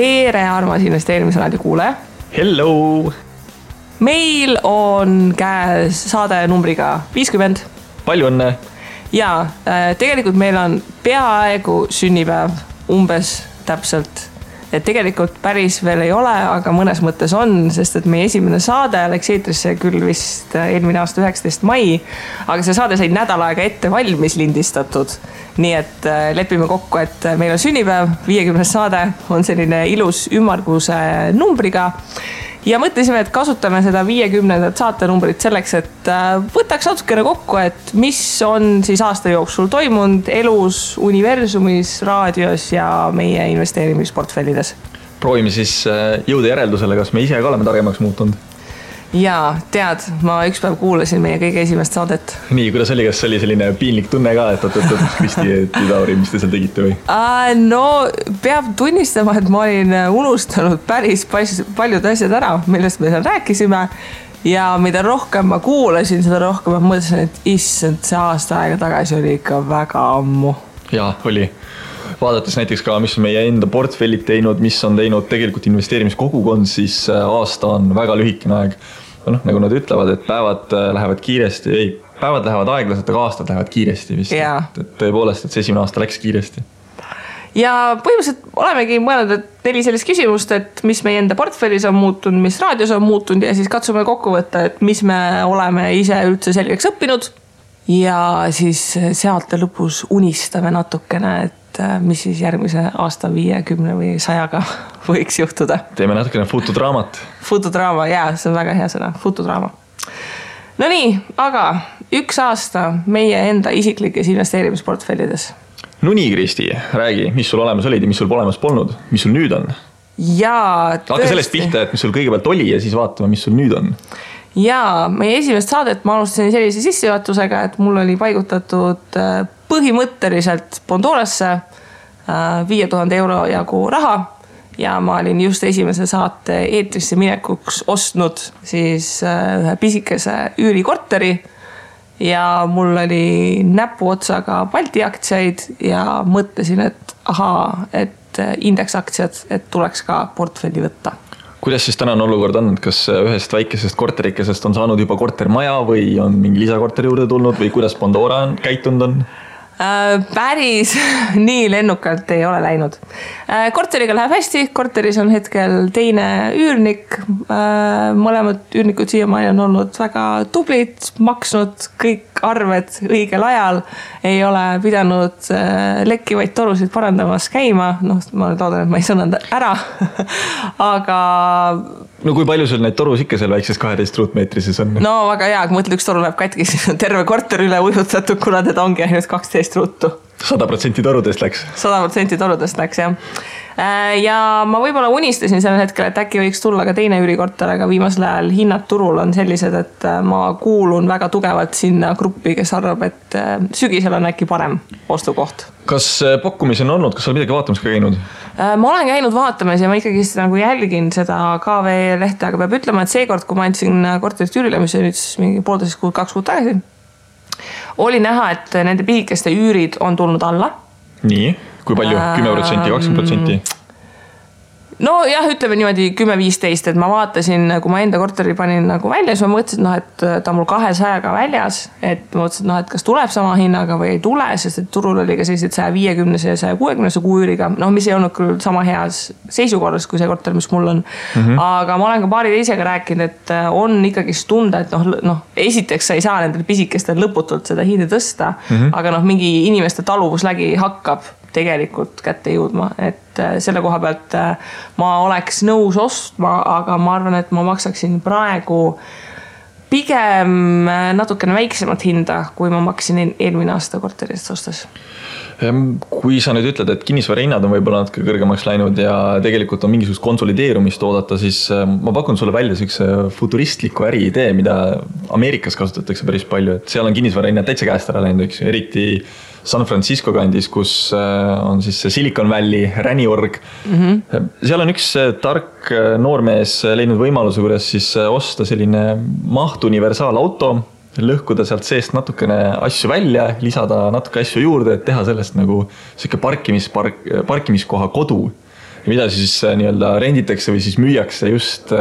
Tere, armas investeerimisraadio kuulaja. Hello! Meil on käes saade numbriga 50. Palju õnne! Ja tegelikult meil on peaaegu sünnipäev, umbes täpselt. Et tegelikult päris veel ei ole, aga mõnes mõttes on, sest et meie esimene saade läks eetrisse küll vist eelmine aasta 19. mai, aga see saade sai nädal aega ette valmis lindistatud. Nii et lepime kokku, et meil on sünnipäev, 50. saade on selline ilus ümmarguse numbriga. Ja mõtlesime, et kasutame seda 50. saatenumbrit selleks, et võtaks natukene kokku, et mis on siis aasta jooksul toimunud elus, universumis, raadios ja meie investeerimisportfellides. Proovime siis jõuda järeldusele, kas me ise ka oleme targemaks muutunud. Jaa, tead, ma üks päev kuulasin meie kõige esimest saadet. Nii, kuidas oli, kas oli selline piinlik tunne ka, et Kristi, et Lauri, mis te seal tegite või? No, peab tunnistama, et ma olin unustanud päris paljud asjad ära, millest me seal rääkisime. Ja mida rohkem ma kuulasin, seda rohkem ma mõtlesin, et issand, see aasta aega tagasi oli ikka väga ammu. Jaa, oli. Vaadates näiteks ka, mis on meie enda portfellid teinud, mis on teinud tegelikult investeerimiskogukond, siis aasta on väga lühikene aeg. Nagu nad ütlevad, et päevad lähevad kiiresti, päevad lähevad aeglaselt, aga aastad lähevad kiiresti vist. Et tõepoolest, et see esimene aasta läks kiiresti. Ja põhimõtteliselt olemegi mõelnud, et 4 sellist küsimust, et mis meie enda portfellis on muutunud, mis raadios on muutunud ja siis katsume kokku võtta, et mis me oleme ise üldse selgeks õppinud. Ja siis sealt lõpus unistame natukene, et mis siis järgmise aasta 50 või 100-ga võiks juhtuda. Teeme natukene futudraamat. Futudraama, jaa, see on väga hea sõna, futudraama. No nii, aga üks aasta meie enda isiklikes investeerimisportfellides. No nii, Kristi, räägi, mis sul olemas olid ja mis sul olemas polnud, mis sul nüüd on? Jaa, Hakka sellest pihta, et mis sul kõigepealt oli ja siis vaatame, mis sul nüüd on. Jaa, meie esimest saadet ma alustasin sellise sissejuhatusega, et mul oli paigutatud põhimõtteliselt Pandorasse 5000 euro jagu raha ja ma olin just esimese saate eetrisse minekuks ostnud siis ühe pisikese üürikorteri ja mul oli näpu otsaga Balti aktsiaid ja mõtlesin, et et indeksaktsiad, et tuleks ka portfelli võtta. Kuidas siis tänane olukord on? Kas ühest väikesest korterikesest on saanud juba kortermaja või on mingi lisakorteri juurde tulnud või kuidas Pandora on käitunud on? Päris nii lennukalt ei ole läinud. Korteriga läheb hästi, korteris on hetkel teine üürnik. Mõlemad üürnikud siiamaani on olnud väga tublid, maksnud kõik arved õigel ajal. Ei ole pidanud lekkivaid torusid parandamas käima. Ma loodan, et ma ei sõnanud ära. Aga... No kui palju sul neid torus ikka seal väikses 12 ruutmeetrises on? No väga hea, kui mõtled, üks toru läheb katki, siis on terve korter üle ujutatud, kuna teda ongi ainult 12 ruutu. 100% torudest läks? 100% torudest läks, jah. Ja ma võib-olla unistasin sellel hetkel, et äkki võiks tulla ka teine üürikorter, aga viimasel ajal hinnad turul on sellised, et ma kuulun väga tugevalt sinna gruppi, kes arvab, et sügisel on äkki parem ostukoht. Kas pakkumisi on olnud? Kas sa midagi vaatamas ka käinud? Ma olen käinud vaatamas ja ma ikkagi nagu jälgin seda KV lehte, aga peab ütlema, et seekord, kui ma andsin korterist üürile, mis on nüüd mingi 1,5 kuud, 2 kuud tagasi, oli näha, et nende pisikeste üürid on tulnud alla. Nii, kui palju? 10%, 20%? No jah, ütleme niimoodi 10-15, et ma vaatasin, kui ma enda korteri panin nagu välja, siis ma mõtlesin, et ta on mul 200-ga väljas, et ma mõtlesin, et kas tuleb sama hinnaga või ei tule, sest et turul oli ka sellised 150 ja 160 kuu üüriga, mis ei olnud küll sama heas seisukorras kui see korter, mis mul on. Aga ma olen ka paari teisega rääkinud, et on ikkagi tunda, et esiteks sa ei saa nendel pisikestel lõputult seda hinda tõsta, aga mingi inimeste taluvuslägi hakkab tegelikult kätte jõudma, et selle koha pealt ma oleks nõus ostma, aga ma arvan, et ma maksaksin praegu pigem natukene väiksemat hinda, kui ma maksin eelmine aasta korterist ostes. Kui sa nüüd ütled, et kinnisvarahinnad on võib-olla natuke kõrgemaks läinud ja tegelikult on mingisugust konsolideerumist oodata, siis ma pakun sulle välja sellise futuristliku äriidee, mida Ameerikas kasutatakse päris palju, et seal on kinnisvarahinnad täitsa käest ära läinud, eriti San Francisco kandis, kus on siis Silicon Valley, räniorg. Seal on üks tark noormees leidnud võimaluse, kuidas siis osta selline mahtuniversaalauto, lõhkuda sealt seest natukene asju välja, lisada natuke asju juurde, et teha sellest nagu selline parkimiskoha kodu. mida siis nii-öelda renditakse või siis müüakse just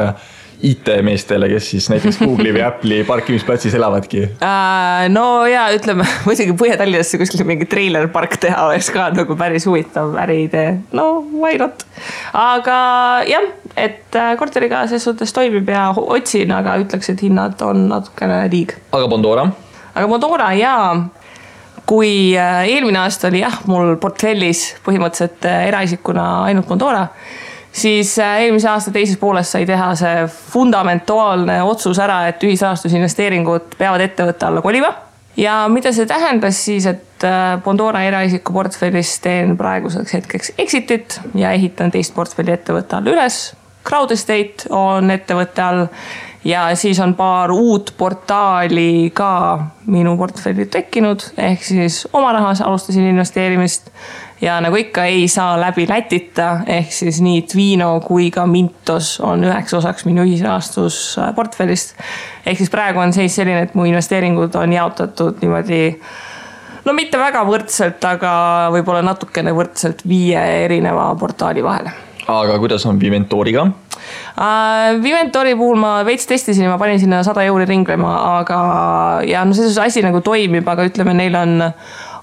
IT-meestele, kes siis näiteks Google'i või Apple'i parkimisplatsis elavadki? No ja ütleme, muidugi Põhja-Tallinnasse kuskil mingi trailerpark teha oleks ka nagu päris huvitav äriidee. No, why not? Aga jah, et korteriga selles suhtes toimib ja otsin, aga ütleks, et hinnad on natukene liig. Aga Bondora? Aga Bondora jaa. Kui eelmine aasta oli mul portfellis põhimõtteliselt eraisikuna ainult Bondora, siis eelmise aasta teises pooles sai teha see fundamentaalne otsus ära, et ühisrahastusinvesteeringud peavad ettevõtte alla kolima. Ja mida see tähendas siis, et Bondora eraisiku portfellis teen praeguseks hetkeks exitit ja ehitan teist portfelli ettevõtte all üles. Crowd Estate on ettevõtte all ja siis on paar uut portaali ka minu portfelli tekkinud, ehk siis oma rahas alustasin investeerimist ja nagu ikka ei saa läbi Lätita, ehk siis nii Twino kui ka Mintos on üheks osaks minu ühisrahastus portfellist. Ehk siis praegu on seis selline, et mu investeeringud on jaotatud niimoodi, no mitte väga võrdselt, aga võib-olla natukene võrdselt 5 erineva portaali vahele. Aga kuidas on Viventoriga? Viventori puhul ma veits testisin ja ma panin sinna 100 euri ringlema, aga ja no see asi nagu toimib, aga ütleme, neil on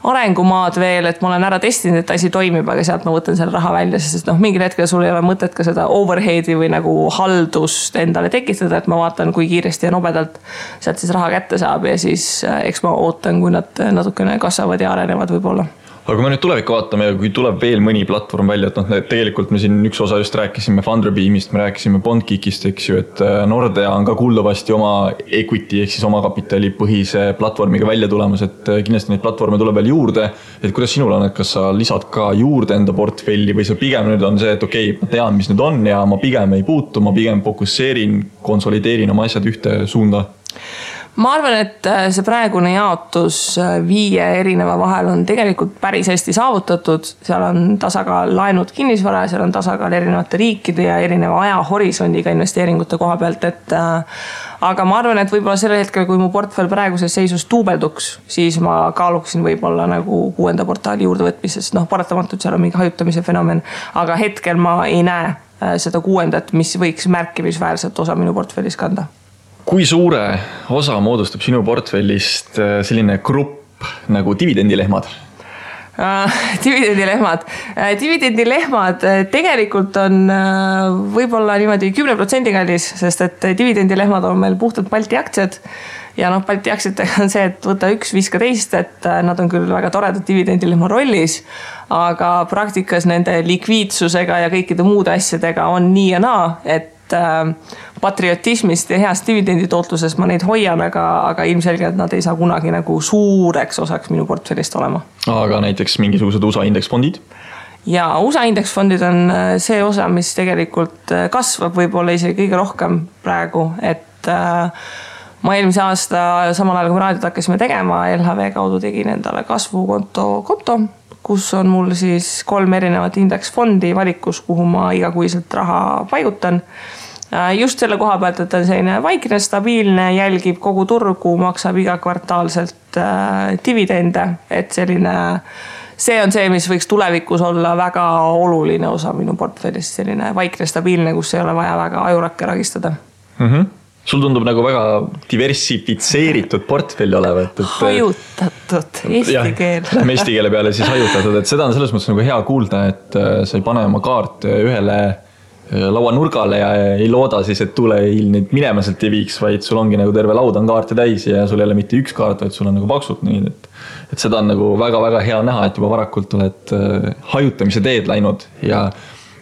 arengumaad veel, et ma olen ära testinud, et asi toimib, aga sealt ma võtan selle raha välja, sest mingil hetkel sul ei ole mõtet ka seda overheadi või nagu haldust endale tekitada, et ma vaatan, kui kiiresti ja nobedalt sealt siis raha kätte saab ja siis eks ma ootan, kui nad natukene kasvavad ja arenevad võib-olla. Aga kui me nüüd tulevikku vaatame ja kui tuleb veel mõni platvorm välja, et tegelikult me siin üks osa just rääkisime Funderbeamist, me rääkisime Bondgeekist, eks ju, et Nordea on ka kuuldavasti oma equity ehk siis oma kapitali põhise platvormiga välja tulemas, et kindlasti neid platvorme tuleb veel juurde. Et kuidas sinul on, et kas sa lisad ka juurde enda portfelli või see pigem nüüd on see, et okei, ma tean, mis nüüd on ja ma pigem ei puutu, ma pigem fokusseerin, konsolideerin oma asjad ühte suunda? Ma arvan, et see praegune jaotus 5 erineva vahel on tegelikult päris hästi saavutatud. Seal on tasakaal laenud kinnisvara, seal on tasakaal erinevate riikide ja erineva ajahorisondiga investeeringute koha pealt. Aga ma arvan, et võib-olla sellel hetkel, kui mu portfell praeguses seisus tuubelduks, siis ma kaaluksin võib-olla nagu 6. portaali juurde võtmises. Paratamatult seal on mingi hajutamise fenomen, aga hetkel ma ei näe seda 6., mis võiks märkimisväärselt osa minu portfellis kanda. Kui suure osa moodustab sinu portfellist selline grupp nagu dividendilehmad? Dividendilehmad tegelikult on võib-olla niimoodi 10% kallis, sest et dividendilehmad on meil puhtalt Balti aktsiad. Ja Balti aktsiatega on see, et võta üks, viska teist, et nad on küll väga toredad dividendilehma rollis, aga praktikas nende likviidsusega ja kõikide muude asjadega on nii ja naa, et patriotismist ja heast dividenditootluses ma neid hoian, aga ilmselgelt nad ei saa kunagi nagu suureks osaks minu portfellist olema. Aga näiteks mingisugused USA indeksfondid? Ja USA indeksfondid on see osa, mis tegelikult kasvab võib-olla isegi kõige rohkem praegu, et ma eelmise aasta samal ajal, kui raadiot hakkasime tegema, LHV kaudu tegin endale kasvukonto, kus on mul siis 3 erinevat indeksfondi valikus, kuhu ma igakuiselt raha paigutan. Just selle koha pealt, et on selline vaikne, stabiilne, jälgib kogu turgu, maksab iga kvartaalselt dividende, et see on see, mis võiks tulevikus olla väga oluline osa minu portfellist, selline vaikne, stabiilne, kus ei ole vaja väga ajurakke ragistada. Sul tundub nagu väga diversifitseeritud portfelli olevat. Hajutatud, eesti keel. Lähme eesti keele peale siis hajutatud, et seda on selles mõttes nagu hea kuulda, et sa ei pane oma kaart ühele laua nurgale ja ei looda siis, et tuleil neid minema sealt ei viiks, vaid sul ongi nagu terve laud on kaarte täis ja sul ei ole mitte üks kaart, vaid sul on nagu paksult nii, et seda on nagu väga-väga hea näha, et juba varakult oled hajutamise teed läinud ja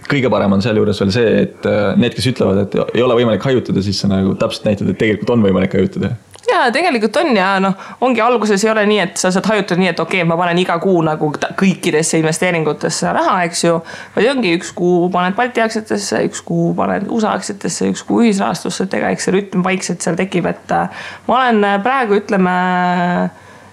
kõige parem on seal juures veel see, et need, kes ütlevad, et ei ole võimalik hajutada, siis sa nagu täpselt näitad, et tegelikult on võimalik hajutada. Ja tegelikult on ja ongi alguses ei ole nii, et sa saad hajutada nii, et okei, ma panen iga kuu nagu kõikidesse investeeringutesse raha, eks ju. Või ongi üks kuu paned Balti aktsiatesse, üks kuu paned USA aktsiatesse, üks kuu ühisrahastusse, et ega eks see rütm vaikselt seal tekib, et ma olen praegu ütleme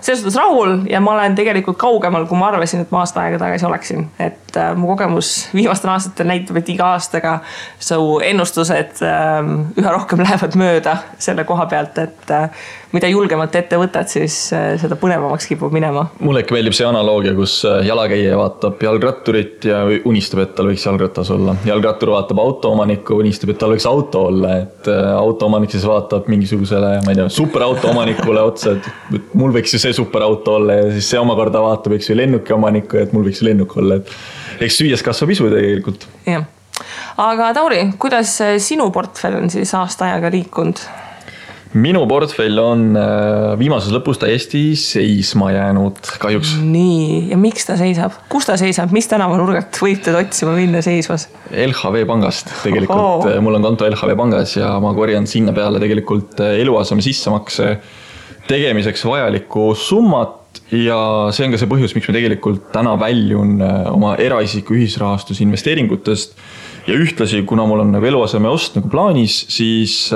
selles suhtes rahul ja ma olen tegelikult kaugemal, kui ma arvasin, et ma aasta aega tagasi oleksin. Et mu kogemus viimastel aastatel näitab, et iga aastaga su ennustused üha rohkem lähevad mööda selle koha pealt, et mida julgemalt ette võtad, siis seda põnevamaks kipub minema. Mulle ikka meeldib see analoogia, kus jalakäija vaatab jalgratturit ja unistab, et tal võiks jalgratas olla. Jalgrattur vaatab autoomanikku, unistab, et tal võiks auto olla, et autoomanik siis vaatab mingisugusele, ma ei tea, superauto omanikule otsa, et mul võiks ju see superauto olla ja siis see omakorda vaatab, eks ju lennuki omanikku, et mul võiks ju lennuk olla, et eks süües kasvab isu tegelikult. Jah. Aga Tauri, kuidas sinu portfell on siis aasta ajaga liikunud? Minu portfell on viimases lõpus täiesti seisma jäänud, kahjuks. Nii, ja miks ta seisab? Kus ta seisab? Mis tänavanurgalt võib teda otsima minna seisvas? LHV pangast tegelikult. Mul on konto LHV pangas ja ma korjan sinna peale tegelikult eluaseme sissemakse tegemiseks vajalikku summat ja see on ka see põhjus, miks ma tegelikult täna väljun oma eraisiku ühisrahastus investeeringutest ja ühtlasi, kuna mul on nagu eluaseme ost nagu plaanis, siis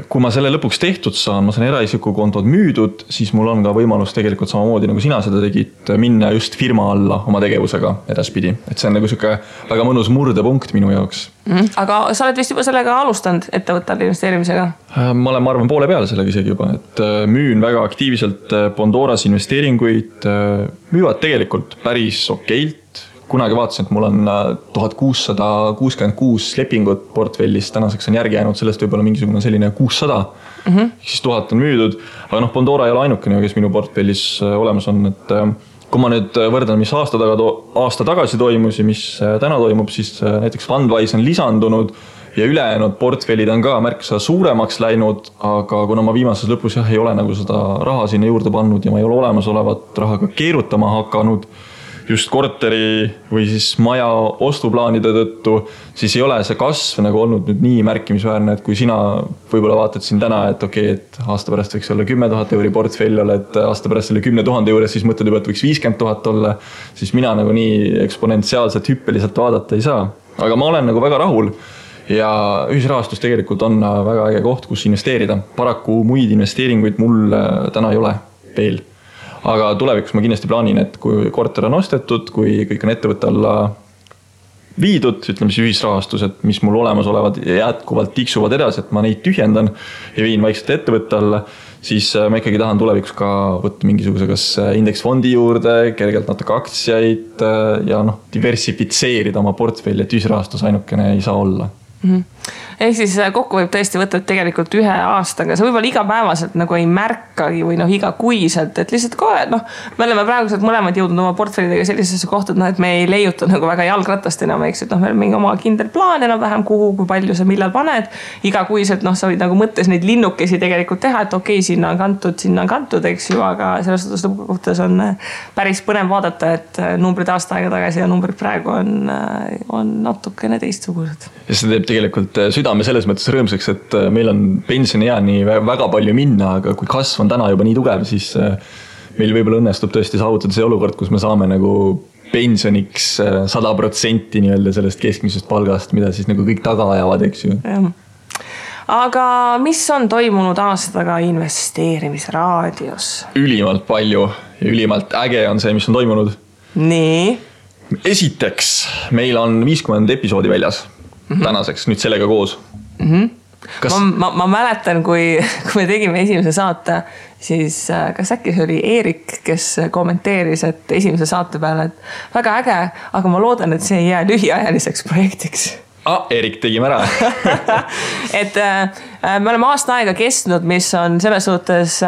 kui ma selle lõpuks tehtud saan, ma saan eraisiku kontod müüdud, siis mul on ka võimalus tegelikult samamoodi, nagu sina seda tegid, minna just firma alla oma tegevusega edaspidi. Et see on nagu siuke väga mõnus murdepunkt minu jaoks. Aga sa oled vist juba sellega alustanud ettevõttel investeerimisega? Ma olen, ma arvan, poole peale sellega isegi juba, et müün väga aktiivselt Pandoras investeeringuid, müüvad tegelikult päris okeilt. Kunagi vaatasin, et mul on 1666 lepingut portfellis, tänaseks on järgi jäänud sellest võib-olla mingisugune selline 600, siis 1000 on müüdud, aga Pandora ei ole ainukene, kes minu portfellis olemas on, et kui ma nüüd võrdan, mis aasta tagasi toimus ja mis täna toimub, siis näiteks Fundwise on lisandunud ja ülejäänud portfellid on ka märksa suuremaks läinud, aga kuna ma viimases lõpus ei ole nagu seda raha sinna juurde pannud ja ma ei ole olemasolevat raha ka keerutama hakanud, just korteri või siis maja ostuplaanide tõttu, siis ei ole see kasv nagu olnud nüüd nii märkimisväärne, et kui sina võib-olla vaatad siin täna, et okei, et aasta pärast võiks olla 10 000 euri portfell olla, et aasta pärast selle 10 000 juures siis mõtled juba, et võiks 50 000 olla, siis mina nagu nii eksponentsiaalselt hüppeliselt vaadata ei saa. Aga ma olen nagu väga rahul ja ühisrahastus tegelikult on väga äge koht, kus investeerida. Paraku muid investeeringuid mul täna ei ole veel. Aga tulevikus ma kindlasti plaanin, et kui korter on ostetud, kui kõik on ettevõtte alla viidud, ütleme siis ühisrahastused, mis mul olemas olevad ja jätkuvalt tiksuvad edasi, et ma neid tühjendan ja viin vaikselt ettevõtte alla, siis ma ikkagi tahan tulevikus ka võtta mingisuguse kas indeksfondi juurde, kergelt natuke aktsiaid ja diversifitseerida oma portfelli, et ühisrahastus ainukene ei saa olla. Ehk siis kokku võib tõesti võtta tegelikult ühe aastaga, see võib-olla igapäevaselt nagu ei märkagi või igakuiselt, et lihtsalt kohe, me oleme praeguselt mõlemad jõudnud oma portfellidega sellisesse kohta, et me ei leiuta nagu väga jalgratast enam, eks, et meil on mingi oma kindel plaan enam vähem kuhu, kui palju sa millal paned, igakuiselt sa võid nagu mõttes neid linnukesi tegelikult teha, et okei, sinna on kantud, eks ju, aga selles suhtes lõpukohtas on päris põnev vaadata, et numbrid aasta aega tagasi ja numbrid praegu on natukene teistsugused. Ja see teeb tegelikult südame selles mõttes rõõmsaks, et meil on pensionieani väga palju minna, aga kui kasv on täna juba nii tugev, siis meil võib-olla õnnestub tõesti saavutada see olukord, kus me saame nagu pensioniks 100% nii-öelda sellest keskmisest palgast, mida siis nagu kõik taga ajavad, eks ju. Aga mis on toimunud aastaga investeerimisraadios? Ülimalt palju ja ülimalt äge on see, mis on toimunud. Nii? Esiteks, meil on 50 episoodi väljas. Tänaseks, nüüd sellega koos. Ma mäletan, kui me tegime esimese saate, siis kas äkki see oli Eerik, kes kommenteeris, et esimese saate peale, et väga äge, aga ma loodan, et see ei jää lühiajaliseks projektiks. Eerik, tegime ära. Et me oleme aasta aega kestnud, mis on selles suhtes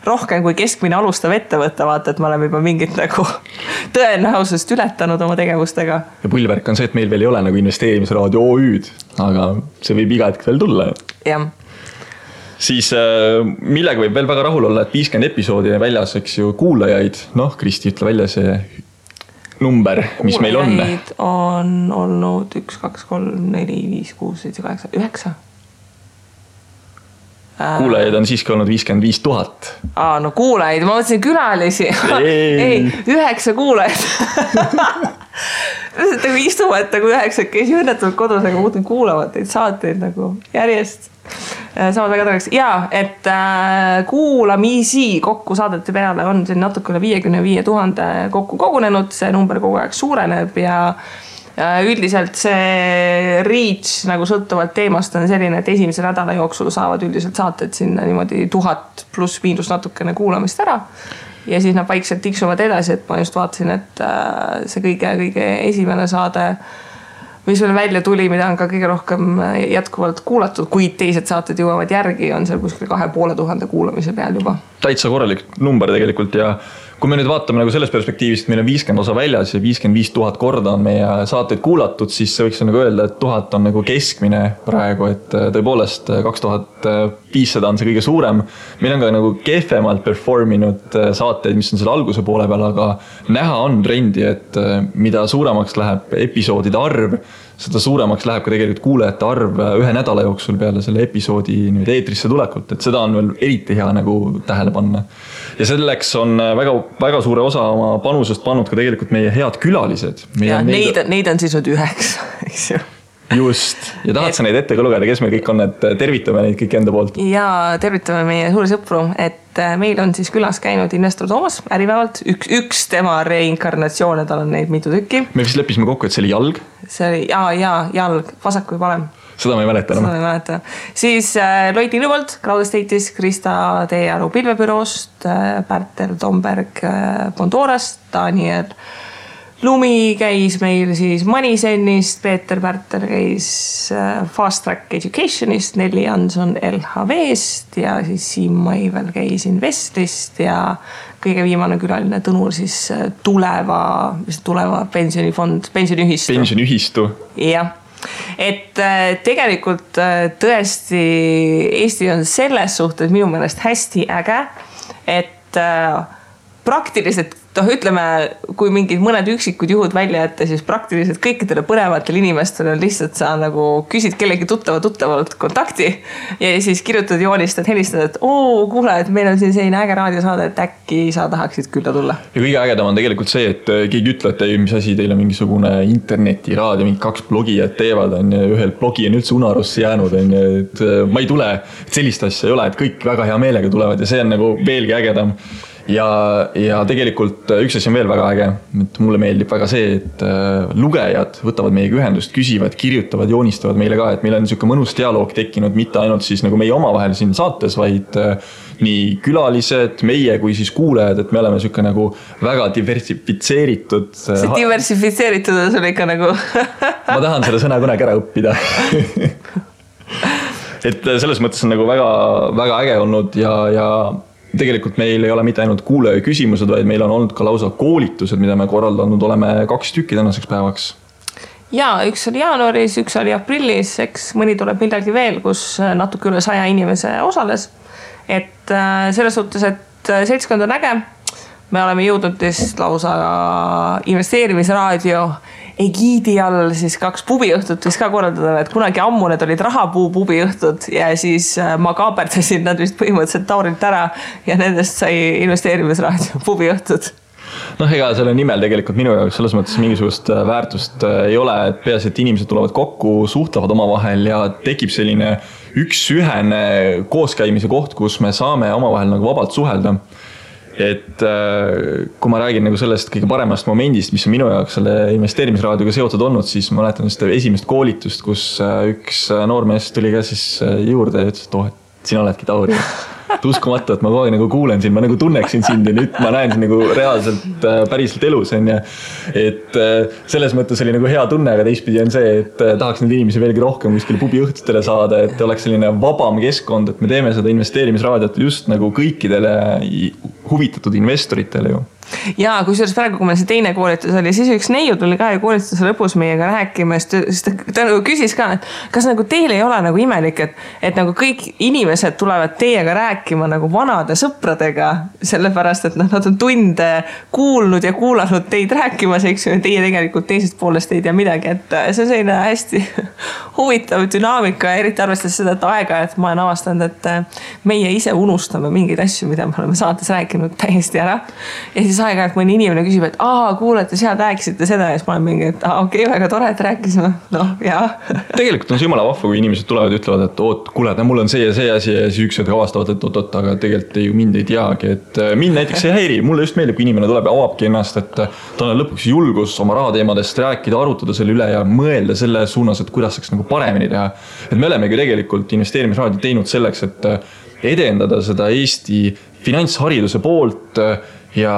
rohkem kui keskmine alustav ettevõte, vaata, et me oleme juba mingit nagu tõenäosust ületanud oma tegevustega. Ja pullvärk on see, et meil veel ei ole nagu investeerimisraadio OÜ'd, aga see võib iga hetk veel tulla. Jah. Siis millega võib veel väga rahul olla, et 50 episoodi väljas, eks ju, kuulajaid. Kristi, ütle välja see number, mis meil on. Kuulajaid on olnud 1, 2, 3, 4, 5, 6, 7, 8, 9. Kuulajaid on siiski olnud 55 000. Kuulajaid, ma mõtlesin külalisi. Ei, 9 kuulajad. nagu istuvad nagu 9 käisi õnnetult kodus, aga muudkui kuulavad neid saateid nagu järjest. Saavad väga tareks. Ja, et kuulamisi kokku saadete peale on siin natuke üle 55 000 kokku kogunenud. See number kogu aeg suureneb ja üldiselt see reach nagu sõltuvalt teemast on selline, et esimese nädala jooksul saavad üldiselt saated sinna niimoodi 1000 pluss miinus natukene kuulamist ära. Ja siis nad vaikselt tiksuvad edasi, et ma just vaatasin, et see kõige esimene saade, mis veel välja tuli, mida on ka kõige rohkem jätkuvalt kuulatud, kuid teised saated jõuavad järgi, on seal kuskil 2500 kuulamise peal juba. Täitsa korralik number tegelikult ja kui me nüüd vaatame nagu selles perspektiivist, meil on 50 osa väljas ja 55 000 korda on meie saateid kuulatud, siis see võiks nagu öelda, et 1000 on nagu keskmine praegu, et tõepoolest 2500 on see kõige suurem. Meil on ka nagu kehvemalt performinud saateid, mis on selle alguse poole peal, aga näha on trendi, et mida suuremaks läheb episoodide arv, seda suuremaks läheb ka tegelikult kuulajate arv ühe nädala jooksul peale selle episoodi eetrisse tulekult, et seda on veel eriti hea nagu tähele panna. Ja selleks on väga suure osa oma panusest pannud ka tegelikult meie head külalised. Ja neid on siis 9, eks ju. Just. Ja tahad sa neid ette ka lugeda, kes meil kõik on, et tervitame neid kõik enda poolt? Ja tervitame meie suuri sõpru, et meil on siis külas käinud investor Toomas äripäevalt. Üks tema reinkarnatsioone, tal on neid mitu tükki. Me vist leppisime kokku, et see oli jalg. See oli, jalg, vasak või parem. Seda ma ei mäleta enam. Seda ma ei mäleta. Siis Loiti Lübolt, Crowd Estate'is, Krista Teearu pilvebüroost, Pärtel Tomberg Bondorast, Daniel Lumi käis meil siis Manisenist, Peeter Pärtel käis Fast Track Educationist, Nelli Jansson LHV-st ja siis Siim Maivel käis Investlist ja kõige viimane külaline Tõnur siis tuleva pensionifond, pensioniühistu. Pensioniühistu. Jah. Et tegelikult tõesti Eesti on selles suhtes minu meelest hästi äge, et praktiliselt ütleme, kui mingid mõned üksikud juhud välja jätta, siis praktiliselt kõikidele põnevatel inimestel on lihtsalt sa nagu küsid kellegi tuttavalt kontakti ja siis kirjutad, joonistad, helistad, et kuule, et meil on siin selline äge raadiosaade, et äkki sa tahaksid külla tulla. Ja kõige ägedam on tegelikult see, et keegi ütleb, et mis asi teil on mingisugune internetiraadio, mingi 2 blogijad teevad, ühel blogi on üldse unarusse jäänud, et ma ei tule, et sellist asja ei ole, et kõik väga hea meelega tulevad ja see on nagu veelgi ägedam. Ja tegelikult üks asi on veel väga äge, et mulle meeldib väga see, et lugejad võtavad meiega ühendust, küsivad, kirjutavad, joonistavad meile ka, et meil on niisugune mõnus dialoog tekkinud, mitte ainult siis nagu meie omavahel siin saates, vaid nii külalised, meie kui siis kuulajad, et me oleme niisugune nagu väga diversifitseeritud. See diversifitseeritud on sul ikka nagu... Ma tahan selle sõna kunagi ära õppida. Et selles mõttes on nagu väga, väga äge olnud ja tegelikult meil ei ole mitte ainult kuulaja küsimused, vaid meil on olnud ka lausa koolitused, mida me korraldanud oleme 2 tükki tänaseks päevaks. Ja, üks oli jaanuaris, üks oli aprillis, eks mõni tuleb midagi veel, kus natuke üle 100 inimese osales. Et selles suhtes, et seltskond on äge. Me oleme jõudnud lausa investeerimisraadio egiidi all siis 2 pubiõhtut vist ka korraldada, et kunagi ammu need olid rahapuu pubiõhtud ja siis ma kaaperdasin nad vist põhimõtteliselt Taurilt ära ja nendest sai investeerimisraadio pubiõhtud. Ega selle nimel tegelikult minu jaoks selles mõttes mingisugust väärtust ei ole, et peas, et inimesed tulevad kokku, suhtlevad omavahel ja tekib selline üksühene kooskäimise koht, kus me saame omavahel nagu vabalt suhelda. Et kui ma räägin nagu sellest kõige paremast momendist, mis on minu jaoks selle investeerimisraadioga seotud olnud, siis ma mäletan seda esimest koolitust, kus üks noormees tuli ka siis juurde ja ütles, et sina oledki Tauri. Uskumatu, et ma kogu aeg nagu kuulen sind, ma nagu tunneksin sind ja nüüd ma näen sind nagu reaalselt päriselt elus. Et selles mõttes oli nagu hea tunne, aga teistpidi on see, et tahaks neid inimesi veelgi rohkem kuskile pubiõhtutele saada, et oleks selline vabam keskkond, et me teeme seda investeerimisraadiot just nagu kõikidele huvitatud investoritele ju. Ja kusjuures praegu, kui meil see teine koolitus oli, siis üks neiu tuli ka ja koolituse lõpus meiega rääkima, siis ta nagu küsis ka, et kas nagu teil ei ole nagu imelik, et nagu kõik inimesed tulevad teiega rääkima nagu vanade sõpradega, sellepärast, et nad on tunde kuulnud ja kuulanud teid rääkimas, eks ju, teie tegelikult teisest poolest ei tea midagi, et see on selline hästi huvitav dünaamika, eriti arvestades seda, et aega, et ma olen avastanud, et meie ise unustame mingeid asju, mida me oleme saates rääkinud täiesti ära ja siis siis aeg-ajalt mõni inimene küsib, et kuulete, seal rääkisite seda ja siis ma olen mingi, et okei, väga tore, et rääkisime. Jaa. Tegelikult on see jumala vahva, kui inimesed tulevad ja ütlevad, et kuule, mul on see ja see asi ja siis üks avastavad, et oot, aga tegelikult ju mind ei teagi, et mind näiteks ei häiri. Mulle just meeldib, kui inimene tuleb ja avabki ennast, et ta on lõpuks julgus oma rahateemadest rääkida, arutada selle üle ja mõelda selle suunas, et kuidas saaks nagu paremini teha. Et me olemegi tegelikult investeerimisraadio teinud selleks, et edendada seda Eesti finantshariduse poolt ja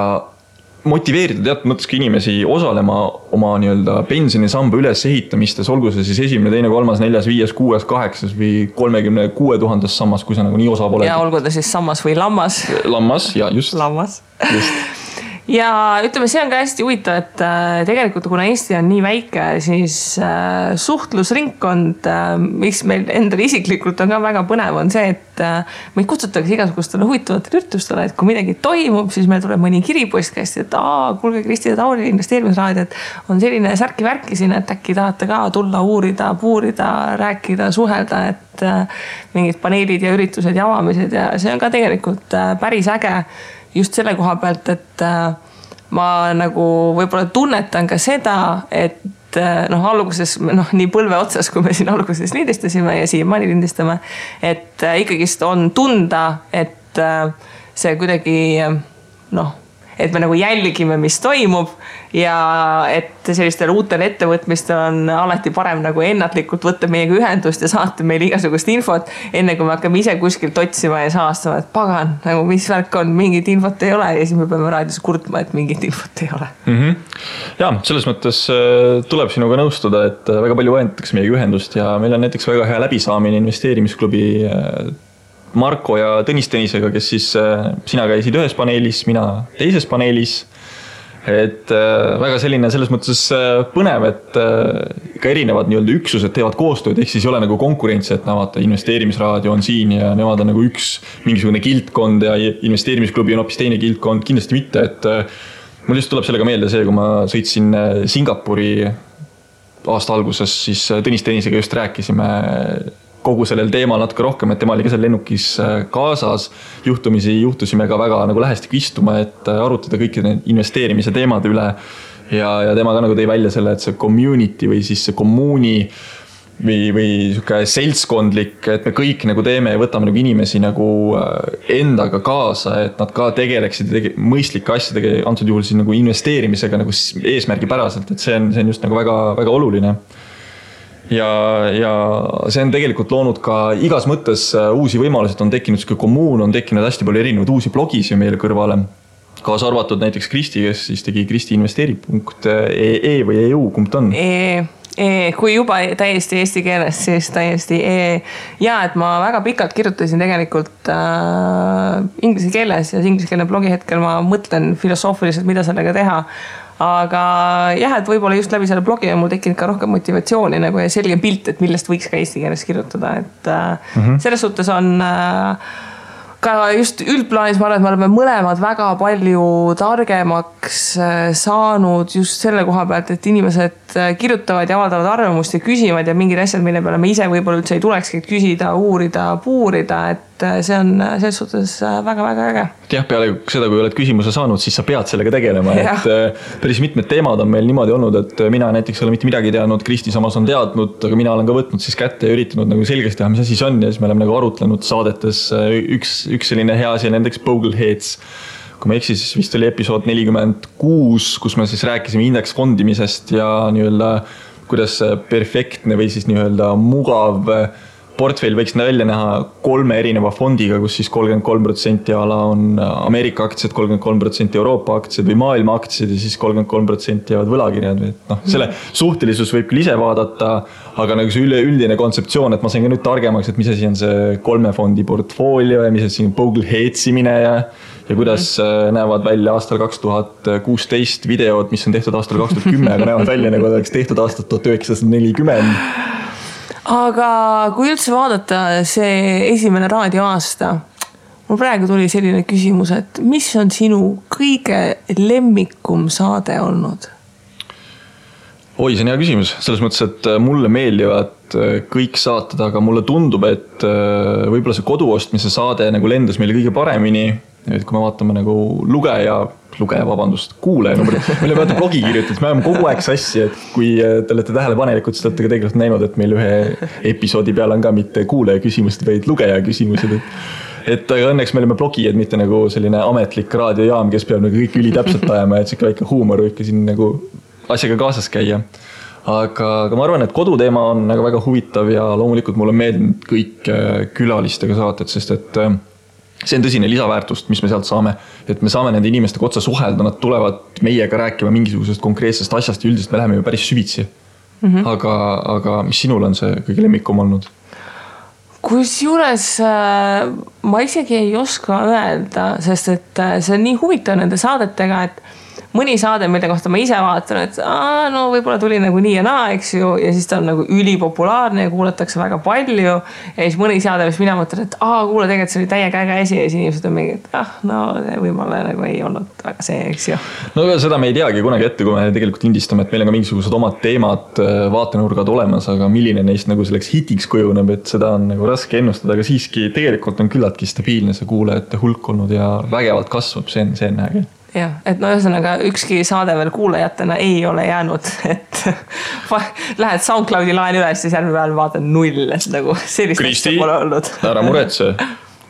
motiveerida teatud mõttes ka inimesi osalema oma pensionisamba ülesehitamistes, olgu see siis 1., 2., 3., 4., 5., 6., 8. või 36 000 sammas, kui sa nagu nii osa pole. Ja olgu ta siis sammas või lammas. Lammas, ja just. Lammas. Just. Ja ütleme, see on ka hästi huvitav, et tegelikult kuna Eesti on nii väike, siis suhtlusringkond, mis meil endal isiklikult on ka väga põnev, on see, et meid kutsutakse igasugustele huvitavatele üritustele, et kui midagi toimub, siis meil tuleb mõni kiripostkästi, et kuulge Kristi ja Tauri investeerimisraadio, et on selline särki-värki siin, et äkki tahate ka tulla uurida, puurida, rääkida, suhelda, et mingid paneelid ja üritused ja avamised ja see on ka tegelikult päris äge just selle koha pealt, et ma nagu võib-olla tunnetan ka seda, et alguses, nii põlve otsas, kui me siin alguses lindistasime ja siiamaani lindistame, et ikkagist on tunda, et see kuidagi, et me nagu jälgime, mis toimub ja et sellistel uutel ettevõtmistel on alati parem nagu ennatlikult võtta meiega ühendust ja saata meile igasugust infot, enne kui me hakkame ise kuskilt otsima ja saastama, et pagan, nagu mis värk on, mingit infot ei ole ja siis me peame raadios kurtma, et mingit infot ei ole. Ja, selles mõttes tuleb sinuga nõustuda, et väga palju võetakse meiega ühendust ja meil on näiteks väga hea läbisaamine investeerimisklubi Marko ja Tõnis Tõnisega, kes siis sina käisid ühes paneelis, mina teises paneelis. Et väga selline selles mõttes põnev, et ka erinevad üksused teevad koostööd, ehk siis ei ole nagu konkurentsi, et vaata, investeerimisraadio on siin ja nemad on nagu üks mingisugune kildkond ja investeerimisklubi on hoopis teine kildkond, kindlasti mitte, et mul just tuleb sellega meelde see, kui ma sõitsin Singapuri aasta alguses, siis Tõnis Tõnisega just rääkisime kogu sellel teemal natuke rohkem, et tema oli ka seal lennukis kaasas. Juhtusime ka väga nagu lähestik istuma, et arutada kõiki need investeerimise teemade üle ja tema ka nagu tõi välja selle, et see community või siis see kommuuni või siuke seltskondlik, et me kõik nagu teeme ja võtame nagu inimesi nagu endaga kaasa, et nad ka tegeleksid mõistlike asjadega, antud juhul siis nagu investeerimisega nagu eesmärgipäraselt, et see on just nagu väga, väga oluline. Ja see on tegelikult loonud ka igas mõttes uusi võimalused, on tekkinud siuke kommuun, on tekkinud hästi palju erinevaid uusi blogisi meile kõrvale. Kaasa arvatud näiteks Kristi, kes siis tegi kristiinvesteeri.ee või EU, kumb ta on? Kui juba täiesti eesti keeles, siis täiesti ja et ma väga pikalt kirjutasin tegelikult inglise keeles ja ingliskeelne blogi hetkel ma mõtlen filosoofiliselt, mida sellega teha. Aga jah, et võib-olla just läbi selle blogi on mul tekkinud ka rohkem motivatsiooni nagu ja selge pilt, et millest võiks ka eesti keeles kirjutada. Et selles suhtes on ka just üldplaanis, ma arvan, et me oleme mõlemad väga palju targemaks saanud just selle koha pealt, et inimesed kirjutavad ja avaldavad arvamust ja küsivad ja mingid asjad, mille peale me ise võib-olla üldse ei tulekski küsida, uurida, puurida, et see on selles suhtes väga-väga äge. Jah, peale seda, kui oled küsimuse saanud, siis sa pead sellega tegelema, et päris mitmed teemad on meil niimoodi olnud, et mina näiteks ei ole mitte midagi teadnud, Kristi samas on teadnud, aga mina olen ka võtnud siis kätte ja üritanud nagu selgeks teha, mis asi see on ja siis me oleme nagu arutlenud saadetes üks selline hea asi on nendeks Bogleheads. Kui ma eksis, siis vist oli episood 46, kus me siis rääkisime indeksfondimisest ja kuidas perfektne või siis mugav portfell võiks välja näha 3 erineva fondiga, kus siis 33% ala on Ameerika aktsiad, 33% Euroopa aktsiad või maailma aktsiad ja siis 33% jäävad võlakirjad. Selle suhtelisus võib küll ise vaadata, aga nagu see üldine kontseptsioon, et ma sain ka nüüd targemaks, et mis asi on see 3 fondi portfoolio ja mis asi on Bogleheadsimine ja kuidas näevad välja aastal 2016 videod, mis on tehtud aastal 2010, aga näevad välja nagu oleks tehtud aastat 1940. Aga kui üldse vaadata see esimene raadioaasta, mul praegu tuli selline küsimus, et mis on sinu kõige lemmikum saade olnud? Oi, see on hea küsimus. Selles mõttes, et mulle meeldivad kõik saated, aga mulle tundub, et võib-olla see koduostmise saade nagu lendas meile kõige paremini. Et kui me vaatame nagu lugeja lugeja, vabandust, kuulaja, meile vaata blogi kirjutades, me oleme kogu aeg sassi, et kui te olete tähelepanelikud, siis te olete ka tegelikult näinud, et meil ühe episoodi peal on ka mitte kuulaja küsimused, vaid lugeja küsimused. Et aga õnneks me oleme blogijad, mitte nagu selline ametlik raadiojaam, kes peab nagu kõik üli täpselt ajama, et siuke väike huumor võib ka siin nagu asjaga kaasas käia. Aga ma arvan, et koduteema on nagu väga huvitav ja loomulikult mulle meeldinud kõik külalistega saated, sest et see on tõsine lisaväärtust, mis me sealt saame, et me saame nende inimestega otsa suhelda, nad tulevad meiega rääkima mingisugusest konkreetsest asjast ja üldiselt me läheme ju päris süvitsi. Aga mis sinul on see kõige lemmikum olnud? Kusjuures ma isegi ei oska öelda, sest et see on nii huvitav nende saadetega, et mõni saade, mille kohta ma ise vaatan, et no võib-olla tuli nagu nii ja naa, eks ju, ja siis ta on nagu ülipopulaarne ja kuulatakse väga palju ja siis mõni saade, mis mina mõtlen, et kuule, tegelikult see oli täiega äge esi ja siis inimesed on mingi, et no võib-olla nagu ei olnud väga see, eks ju. No seda me ei teagi kunagi ette, kui me tegelikult indistame, et meil on ka mingisugused omad teemad, vaatenurgad olemas, aga milline neist nagu selleks hitiks kujuneb, et seda on nagu raske ennustada, aga siiski tegelikult on küllaltki stabiilne see kuulajate hulk olnud ja vägevalt kasvab, see on äge. Jah, et no ühesõnaga ükski saade veel kuulajatena ei ole jäänud, et lähed SoundCloudi laen üles, siis järgmine päeval vaatan 0, et nagu sellist Kristi, pole olnud. Ära muretse,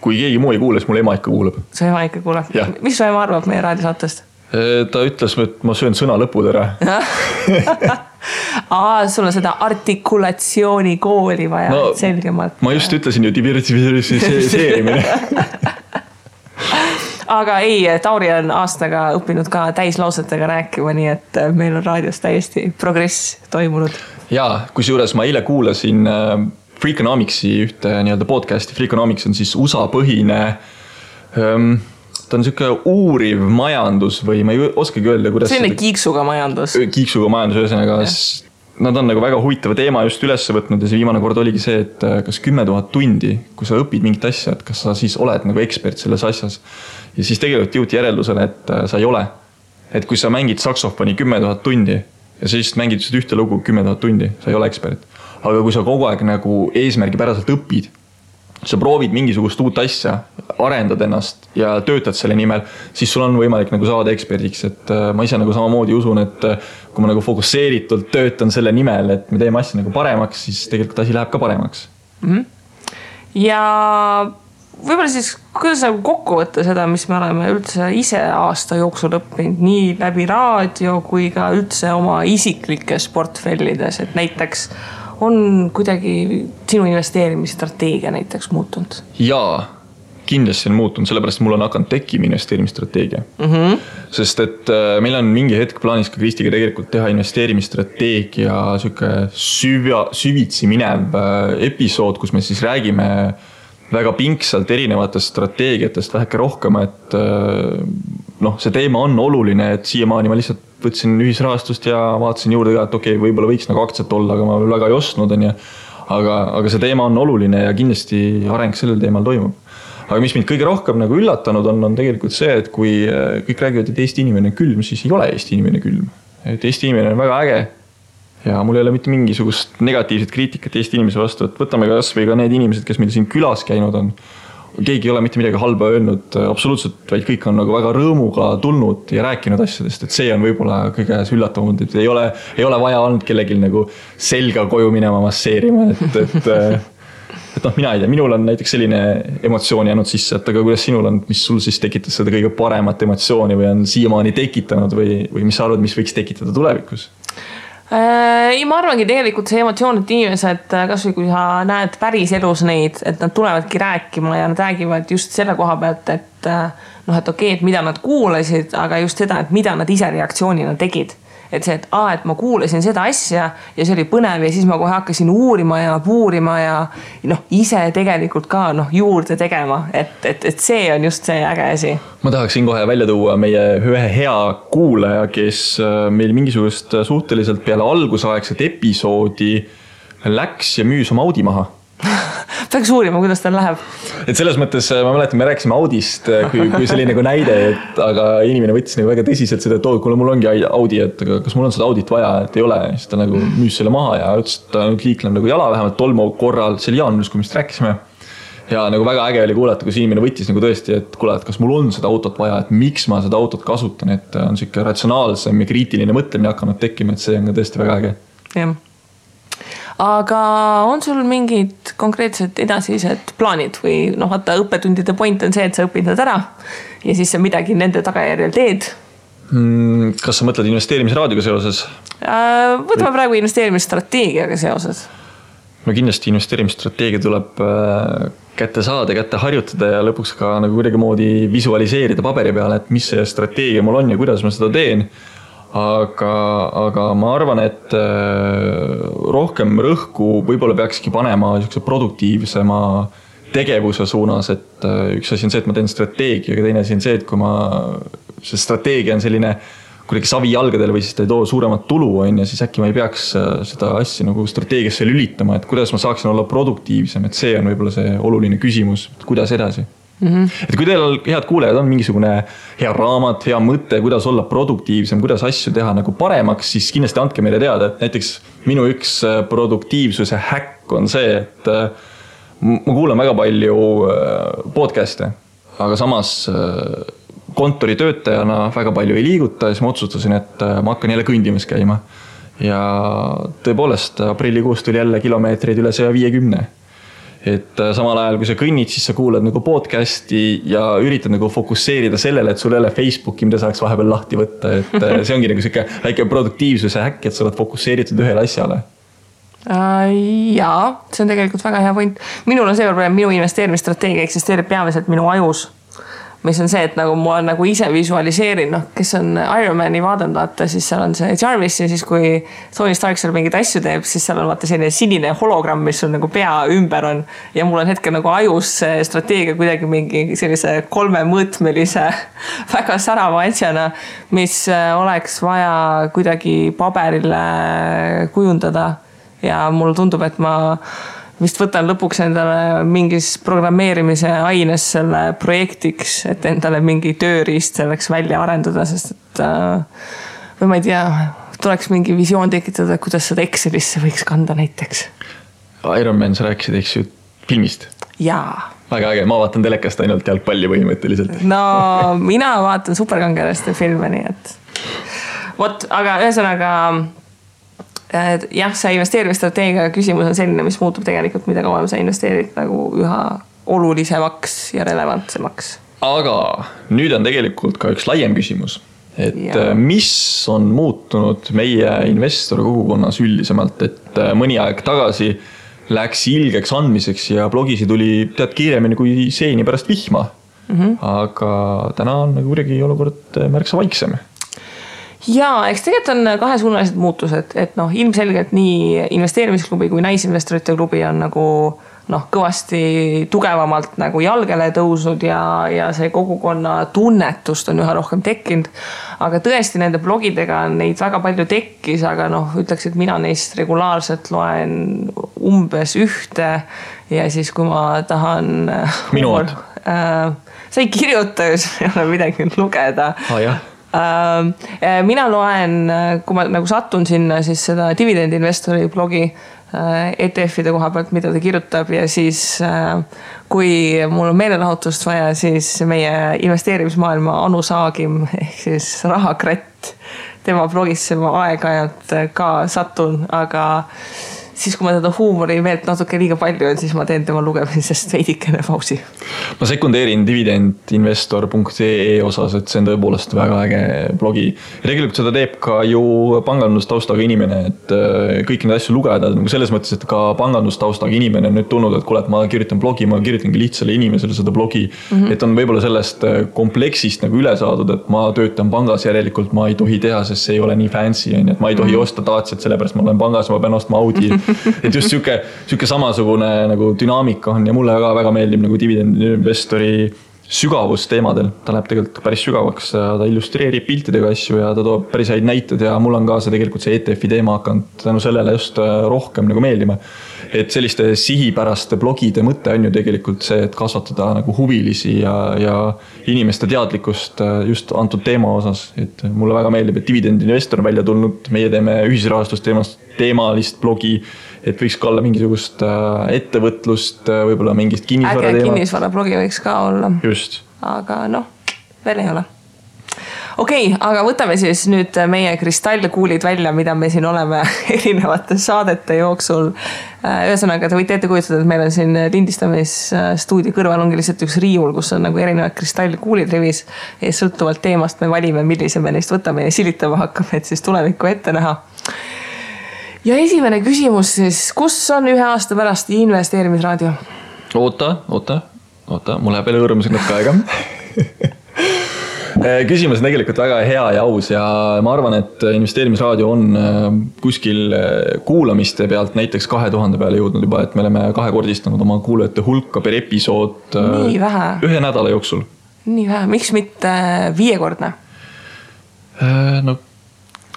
kui keegi muu ei kuule, siis mul ema ikka kuuleb. Su ema ikka kuuleb? Mis su ema arvab meie raadiosaatest? Ta ütles, et ma söön sõna lõpud ära. Sul on seda artikulatsiooni kooli vaja, no, selgemalt. Ma just ütlesin ju diversiseerimine. Aga ei, Tauri on aastaga õppinud ka täislausetega rääkima, nii et meil on raadios täiesti progress toimunud. Jaa, kusjuures ma eile kuulasin Freakonomicsi ühte nii-öelda podcasti. Freakonomics on siis USA põhine, ta on siuke uuriv majandus või ma ei oskagi öelda, kuidas... Selline kiiksuga majandus. Kiiksuga majandus, ühesõnaga. Nad on nagu väga huvitava teema just üles võtnud ja see viimane kord oligi see, et kas 10 000 tundi, kui sa õpid mingit asja, et kas sa siis oled nagu ekspert selles asjas. Ja siis tegelikult jõuti järeldusele, et sa ei ole. Et kui sa mängid saksofoni 10 000 tundi ja sa just mängid ühte lugu 10 000 tundi, sa ei ole ekspert. Aga kui sa kogu aeg nagu eesmärgi päraselt õpid, sa proovid mingisugust uut asja, arendad ennast ja töötad selle nimel, siis sul on võimalik nagu saada eksperdiks. Et ma ise nagu samamoodi usun, et kui ma nagu fokusseeritult töötan selle nimel, et me teeme asja nagu paremaks, siis tegelikult asi läheb ka paremaks. Ja võib-olla siis, kuidas nagu kokku võtta seda, mis me oleme üldse ise aasta jooksul õppinud, nii läbi raadio kui ka üldse oma isiklikes portfellides, et näiteks on kuidagi sinu investeerimisstrateegia näiteks muutunud? Jaa, kindlasti on muutunud, sellepärast mul on hakanud tekkima investeerimisstrateegia. Sest et meil on mingi hetk plaanis ka Kristiga tegelikult teha investeerimisstrateegia siuke süvitsi minev episood, kus me siis räägime väga pingsalt erinevatest strateegiatest väheke rohkem, et see teema on oluline, et siiamaani ma lihtsalt võtsin ühisrahastust ja vaatasin juurde ka, et okei, võib-olla võiks nagu aktsiat olla, aga ma väga ei ostnud, aga see teema on oluline ja kindlasti areng sellel teemal toimub. Aga mis mind kõige rohkem nagu üllatanud on tegelikult see, et kui kõik räägivad, et Eesti inimene on külm, siis ei ole Eesti inimene külm. Et Eesti inimene on väga äge ja mul ei ole mitte mingisugust negatiivset kriitikat Eesti inimese vastu, et võtame kas või ka need inimesed, kes meil siin külas käinud on. Keegi ei ole mitte midagi halba öelnud absoluutselt, vaid kõik on nagu väga rõõmuga tulnud ja rääkinud asjadest, et see on võib-olla kõige üllatavamad, et ei ole vaja olnud kellelgi nagu selga koju minema masseerima, et mina ei tea, minul on näiteks selline emotsioon jäänud sisse, et aga kuidas sinul on, mis sul siis tekitas seda kõige paremat emotsiooni või on siiamaani tekitanud või mis sa arvad, mis võiks tekitada tulevikus? Ei, ma arvangi tegelikult see emotsioon, et inimesed, kas või kui sa näed päris elus neid, et nad tulevadki rääkima ja nad räägivad just selle koha pealt, et okei, et mida nad kuulasid, aga just seda, et mida nad ise reaktsioonina tegid. Et see, et ma kuulasin seda asja ja see oli põnev ja siis ma kohe hakkasin uurima ja puurima ja ise tegelikult ka juurde tegema, et see on just see äge asi. Ma tahaksin kohe välja tuua meie ühe hea kuulaja, kes meil mingisugust suhteliselt peale algusaegset episoodi läks ja müüs oma Audi maha. Peaks uurima, kuidas tal läheb. Et selles mõttes, ma mäletan, me rääkisime Audist kui selline nagu näide, aga inimene võttis nagu väga tõsiselt seda, et kuule, mul ongi Audi, et kas mul on seda Audit vaja, et ei ole. Siis ta nagu müüs selle maha ja ütles, et ta liikleb nagu jala vähemalt tolmu korral, see oli jaanuaris, kui me rääkisime. Ja nagu väga äge oli kuulata, kui inimene võttis nagu tõesti, et kuule, et kas mul on seda autot vaja, et miks ma seda autot kasutan, et on siuke ratsionaalsem ja kriitiline mõtlemine hakanud tekkima, et see on ka tõesti väga äge. Jah. Aga on sul mingid konkreetsed edasised plaanid või vaata õppetundide point on see, et sa õpid nad ära ja siis sa midagi nende tagajärjel teed? Kas sa mõtled investeerimisraadioga seoses? Võtame praegu investeerimisstrateegiaga seoses. No kindlasti investeerimisstrateegia tuleb kätte saada, kätte harjutada ja lõpuks ka nagu kuidagi moodi visualiseerida paberi peale, et mis see strateegia mul on ja kuidas ma seda teen. Aga ma arvan, et rohkem rõhku võib-olla peakski panema produktiivsema tegevuse suunas, et üks asi on see, et ma teen strateegia, aga teine asi on see, et kui see strateegia on selline kuidagi savi jalgadel või siis ta ei too suuremat tulu, siis äkki ma ei peaks seda asja nagu strateegiasse lülitama, et kuidas ma saaksin olla produktiivsem, et see on võib-olla see oluline küsimus, kuidas edasi. Et kui teil head kuulejad on mingisugune hea raamat, hea mõte, kuidas olla produktiivsem, kuidas asju teha nagu paremaks, siis kindlasti andke meile teada, et näiteks minu üks produktiivsuse häkk on see, et ma kuulan väga palju podcast'e, aga samas kontoritöötajana väga palju ei liiguta ja siis ma otsustasin, et ma hakkan jälle kõndimas käima. Ja tõepoolest aprillikuus tuli jälle kilomeetreid üle 150. Et samal ajal, kui sa kõnnid, siis sa kuulad nagu podcasti ja üritad nagu fokusseerida sellele, et sul ei ole Facebooki, mida saaks vahepeal lahti võtta. Et see ongi nagu siuke väike produktiivsuse häkk, et sa oled fokusseeritud ühele asjale. Jaa, see on tegelikult väga hea point. Minul on see probleem, minu investeerimisstrateegia eksisteerib peamiselt minu ajus. Mis on see, et nagu ma nagu ise visualiseerin, kes on Ironmani vaadanud, vaata, siis seal on see Jarvis ja siis kui Tony Stark seal mingid asju teeb, siis seal on vaata selline sinine hologramm, mis on nagu pea ümber on ja mul on hetkel nagu ajus strateegia kuidagi mingi sellise 3-mõõtmelise väga särava asjana, mis oleks vaja kuidagi paberile kujundada ja mulle tundub, et ma vist võtan lõpuks endale mingis programmeerimise aines selle projektiks, et endale mingi tööriist selleks välja arendada, sest et või ma ei tea, tuleks mingi visioon tekitada, kuidas seda Excelisse võiks kanda näiteks. Ironman, sa rääkisid, eks ju, filmist? Jaa. Väga äge, ma vaatan telekast ainult jalgpalli põhimõtteliselt. No, mina vaatan superkangelaste filme, nii et vot, aga ühesõnaga jah, see investeerimisstrateegia küsimus on selline, mis muutub tegelikult, mida kauem sa investeerid nagu üha olulisemaks ja relevantsemaks. Aga nüüd on tegelikult ka üks laiem küsimus, et mis on muutunud meie investori kogukonnas üldisemalt, et mõni aeg tagasi läks ilgeks andmiseks ja blogisi tuli tead kiiremini kui seeni pärast vihma. Aga täna on nagu kuidagi olukord märksa vaiksem. Jaa, eks tegelikult on kahesuunalised muutused, et ilmselgelt nii investeerimisklubi kui naisinvestorite klubi on nagu kõvasti tugevamalt nagu jalgele tõusnud ja see kogukonna tunnetust on üha rohkem tekkinud. Aga tõesti nende blogidega neid väga palju tekkis, aga ütleks, et mina neist regulaarselt loen umbes ühte ja siis kui ma tahan minuad. Sa ei kirjuta, ei ole midagi lugeda. Jah. Mina loen, kui ma nagu satun sinna siis seda dividendinvestori blogi ETF-ide koha pealt, mida ta kirjutab ja siis kui mul on meelelahutust vaja, siis meie investeerimismaailma Anu Saagim ehk siis Rahakratt, tema blogisse ma aeg-ajalt ka satun, aga siis kui ma teda huumori meelt natuke liiga palju on, siis ma teen tema lugemisest veidikene pausi. Ma sekundeerin dividendinvestor.ee osas, et see on tõepoolest väga äge blogi. Ja tegelikult seda teeb ka ju pangandustaustaga inimene, et kõik need asju lugeda, nagu selles mõttes, et ka pangandustaustaga inimene on nüüd tulnud, et kuule, et ma kirjutan blogi, ma kirjutangi lihtsale inimesele seda blogi, et on võib-olla sellest kompleksist nagu üle saadud, et ma töötan pangas, järelikult ma ei tohi teha, sest see ei ole nii fancy, et ma ei tohi osta Daciat, sellepärast ma olen pangas, ma pean ostma Audi. Et just siuke samasugune nagu dünaamika on ja mulle väga meeldib nagu dividendinvestori sügavus teemadel. Ta läheb tegelikult päris sügavaks, ta illustreerib piltidega asju ja ta toob päris häid näitud ja mul on ka see tegelikult see ETF-i teema hakanud tänu sellele just rohkem nagu meeldima. Et selliste sihipäraste blogide mõte on ju tegelikult see, et kasvatada nagu huvilisi ja inimeste teadlikkust just antud teema osas. Et mulle väga meeldib, et dividendinvestor on välja tulnud, meie teeme ühisrahastust teemalist blogi, et võiks ka olla mingisugust ettevõtlust, võib-olla mingist kinnisvara teemat. Kinnisvara blogi võiks ka olla. Just. Aga veel ei ole. Okei, aga võtame siis nüüd meie kristallkuulid välja, mida me siin oleme erinevate saadete jooksul. Ühesõnaga, te võite ette kujutada, et meil on siin lindistamisstuudio kõrval ongi lihtsalt üks riiul, kus on nagu erinevad kristallkuulid rivis ja sõltuvalt teemast me valime, millise me neist võtame ja silitama hakkame, et siis tulevikku ette näha. Ja esimene küsimus siis, kus on 1 aasta pärast investeerimisraadio? Oota, mul läheb veel õõrumisega natuke aega. Küsimus on tegelikult väga hea ja aus ja ma arvan, et investeerimisraadio on kuskil kuulamiste pealt näiteks 2000 peale jõudnud juba, et me oleme 2-kordistanud oma kuulajate hulka per episood 1 nädala jooksul. Nii vähe, miks mitte 5-kordne?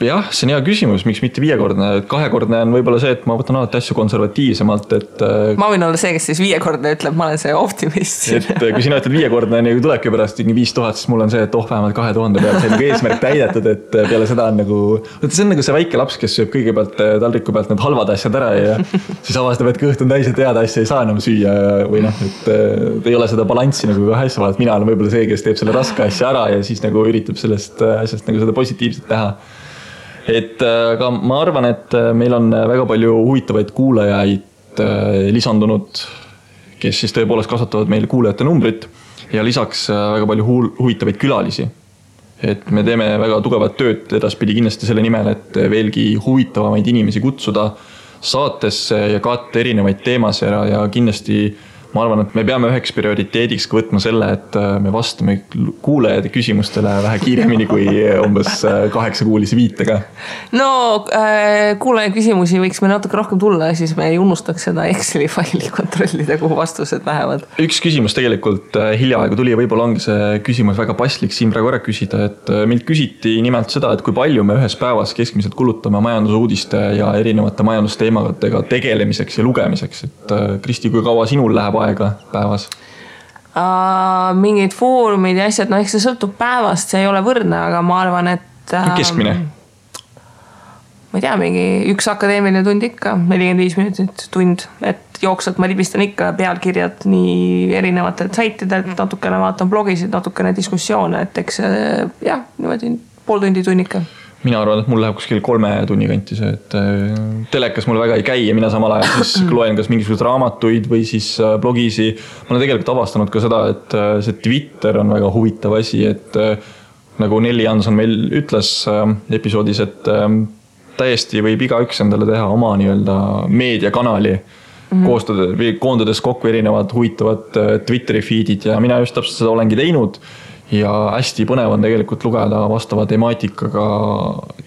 Jah, see on hea küsimus, miks mitte 5-kordne. 2-kordne on võib-olla see, et ma võtan alati asju konservatiivsemalt. Ma võin olla see, kes siis 5-kordne ütleb, ma olen see optimist. Et kui sina ütled 5-kordne, nii tulebki pärast 5000, siis mul on see, et vähemalt 2000 peal. See on eesmärk täidetud, et peale seda on nagu... See on nagu see väike laps, kes sööb kõigepealt taldriku pealt need halvad asjad ära ja siis avastab, et kõht on täis, et head asja ei saa enam süüa või et ei ole seda balanssi nagu kahe asja vahel. Mina olen võib-olla see, kes teeb selle raske asja ära ja siis nagu üritab sellest asjast nagu seda positiivset teha. Aga ma arvan, et meil on väga palju huvitavaid kuulajaid lisandunud, kes siis tõepoolest kasvatavad meil kuulajate numbrit ja lisaks väga palju huvitavaid külalisi. Et me teeme väga tugevat tööd edaspidi kindlasti selle nimel, et veelgi huvitavamaid inimesi kutsuda saatesse ja katta erinevaid teemasid ja kindlasti ma arvan, et me peame üheks prioriteediks võtma selle, et me vastame kuulajate küsimustele vähe kiiremini kui umbes 8-kuulise viitega. No kuulaja küsimusi võiks me natuke rohkem tulla ja siis me ei unustaks seda Exceli faili kontrollida, kuhu vastused lähevad. Üks küsimus tegelikult hiljaaegu tuli ja võib-olla ongi see küsimus väga paslik siin praegu ära küsida, et meilt küsiti nimelt seda, et kui palju me ühes päevas keskmiselt kulutame majandusuudiste ja erinevate majandusteemadega tegelemiseks ja lugemiseks. Et Kristi, kui kaua sinul läheb aega päevas? Mingid foorumid ja asjad, eks see sõltub päevast, see ei ole võrdne, aga ma arvan, et... Keskmine? Ma ei tea, mingi 1 akadeemiline tund ikka, 45 minutit tund, et jooksvalt ma libistan ikka pealkirjad nii erinevatelt saitidelt, natukene vaatan blogisid, natukene diskussioone, et eks jah, niimoodi pool tundi tunnika. Mina arvan, et mul läheb kuskil 3 tunni kanti see, et telekas mul väga ei käi ja mina samal ajal siis loen kas mingisugused raamatuid või siis blogisi. Ma olen tegelikult avastanud ka seda, et see Twitter on väga huvitav asi, et nagu Nelli Jansson meil ütles episoodis, et täiesti võib igaüks endale teha oma nii-öelda meediakanali, koondades kokku erinevad huvitavad Twitteri feedid ja mina just täpselt seda olengi teinud. Ja hästi põnev on tegelikult lugeda vastava temaatikaga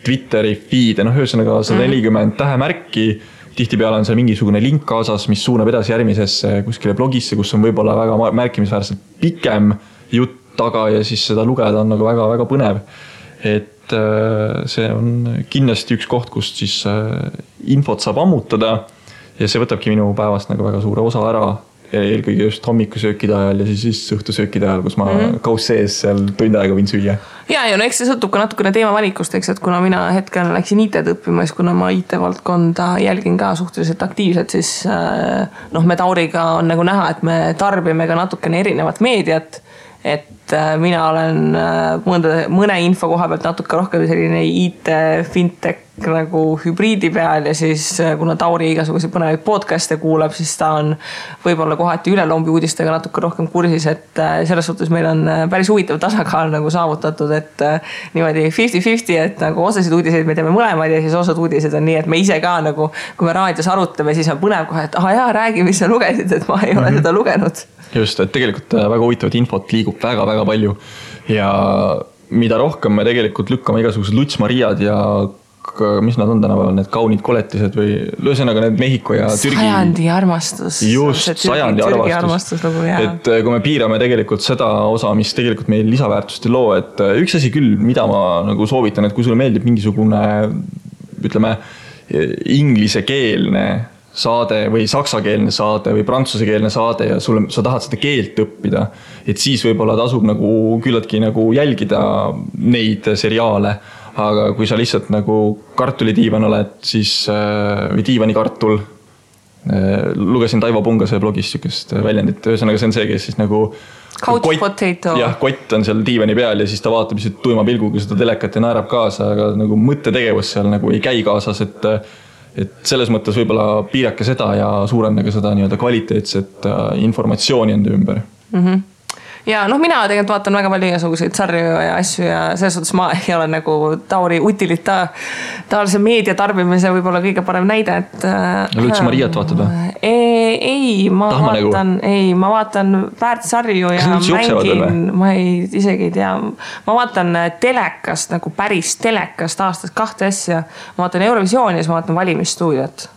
Twitteri feed, ühesõnaga 140 tähemärki, tihtipeale on seal mingisugune link kaasas, mis suunab edasi järgmisesse kuskile blogisse, kus on võib-olla väga märkimisväärselt pikem jutt taga ja siis seda lugeda on nagu väga-väga põnev. Et see on kindlasti üks koht, kust siis infot saab ammutada ja see võtabki minu päevast nagu väga suure osa ära. Eelkõige just hommikusöökide ajal ja siis õhtusöökide ajal, kus ma kaus sees seal tund aega võin süüa. Ja, eks see sõltub ka natukene teema valikust, eks, et kuna mina hetkel läksin IT-d õppima, siis kuna ma IT-valdkonda jälgin ka suhteliselt aktiivselt, siis me Tauriga on nagu näha, et me tarbime ka natukene erinevat meediat, et mina olen mõne info koha pealt natuke rohkem selline IT, fintech nagu hübriidi peal ja siis kuna Tauri igasuguseid põnevaid podcaste kuulab, siis ta on võib-olla kohati ülelombi uudistega natuke rohkem kursis, et selles suhtes meil on päris huvitav tasakaal nagu saavutatud, et niimoodi 50-50, et nagu osasid uudiseid me teeme mõlemad ja siis osad uudised on nii, et me ise ka nagu, kui me raadios arutame, siis on põnev kohe, et jaa, räägi, mis sa lugesid, et ma ei ole seda lugenud. Just, et tegelikult väga huvitavat infot liigub väga-väga palju ja mida rohkem me tegelikult lükkame igasugused Luts-Mariad ja mis nad on tänapäeval, need kaunid koletised või lõõsõnaga need Mehhiko ja Türgi. Sajandi armastus. Just, sajandi armastus. Et kui me piirame tegelikult seda osa, mis tegelikult meil lisaväärtust ei loo, et üks asi küll, mida ma nagu soovitan, et kui sulle meeldib mingisugune, ütleme, inglisekeelne saade või saksakeelne saade või prantsusekeelne saade ja sa tahad seda keelt õppida, et siis võib-olla tasub nagu küllaltki nagu jälgida neid seriaale, aga kui sa lihtsalt nagu kartulidiivan oled, siis, või diivanikartul, lugesin Taivo Pungase blogis sükest väljendit, ühesõnaga see on see, kes siis nagu couch potato. Jah, kott on seal diivani peal ja siis ta vaatab lihtsalt tuima pilguga seda telekat ja naerab kaasa, aga nagu mõttetegevus seal nagu ei käi kaasas, et selles mõttes võib-olla piirake seda ja suurendage seda nii-öelda kvaliteetset informatsiooni enda ümber. Ja noh, mina tegelikult vaatan väga palju igasuguseid sarju ja asju ja selles suhtes ma ei ole nagu Tauri utilitaarse meedia tarbimise võib-olla kõige parem näide, et üldse Mariat vaatad või? Ei, ma vaatan väärtsarju ja mängin, ma isegi ei tea, ma vaatan telekast, nagu päris telekast aastast 2 asja, ma vaatan Eurovisiooni ja siis ma vaatan valimisstuudiot.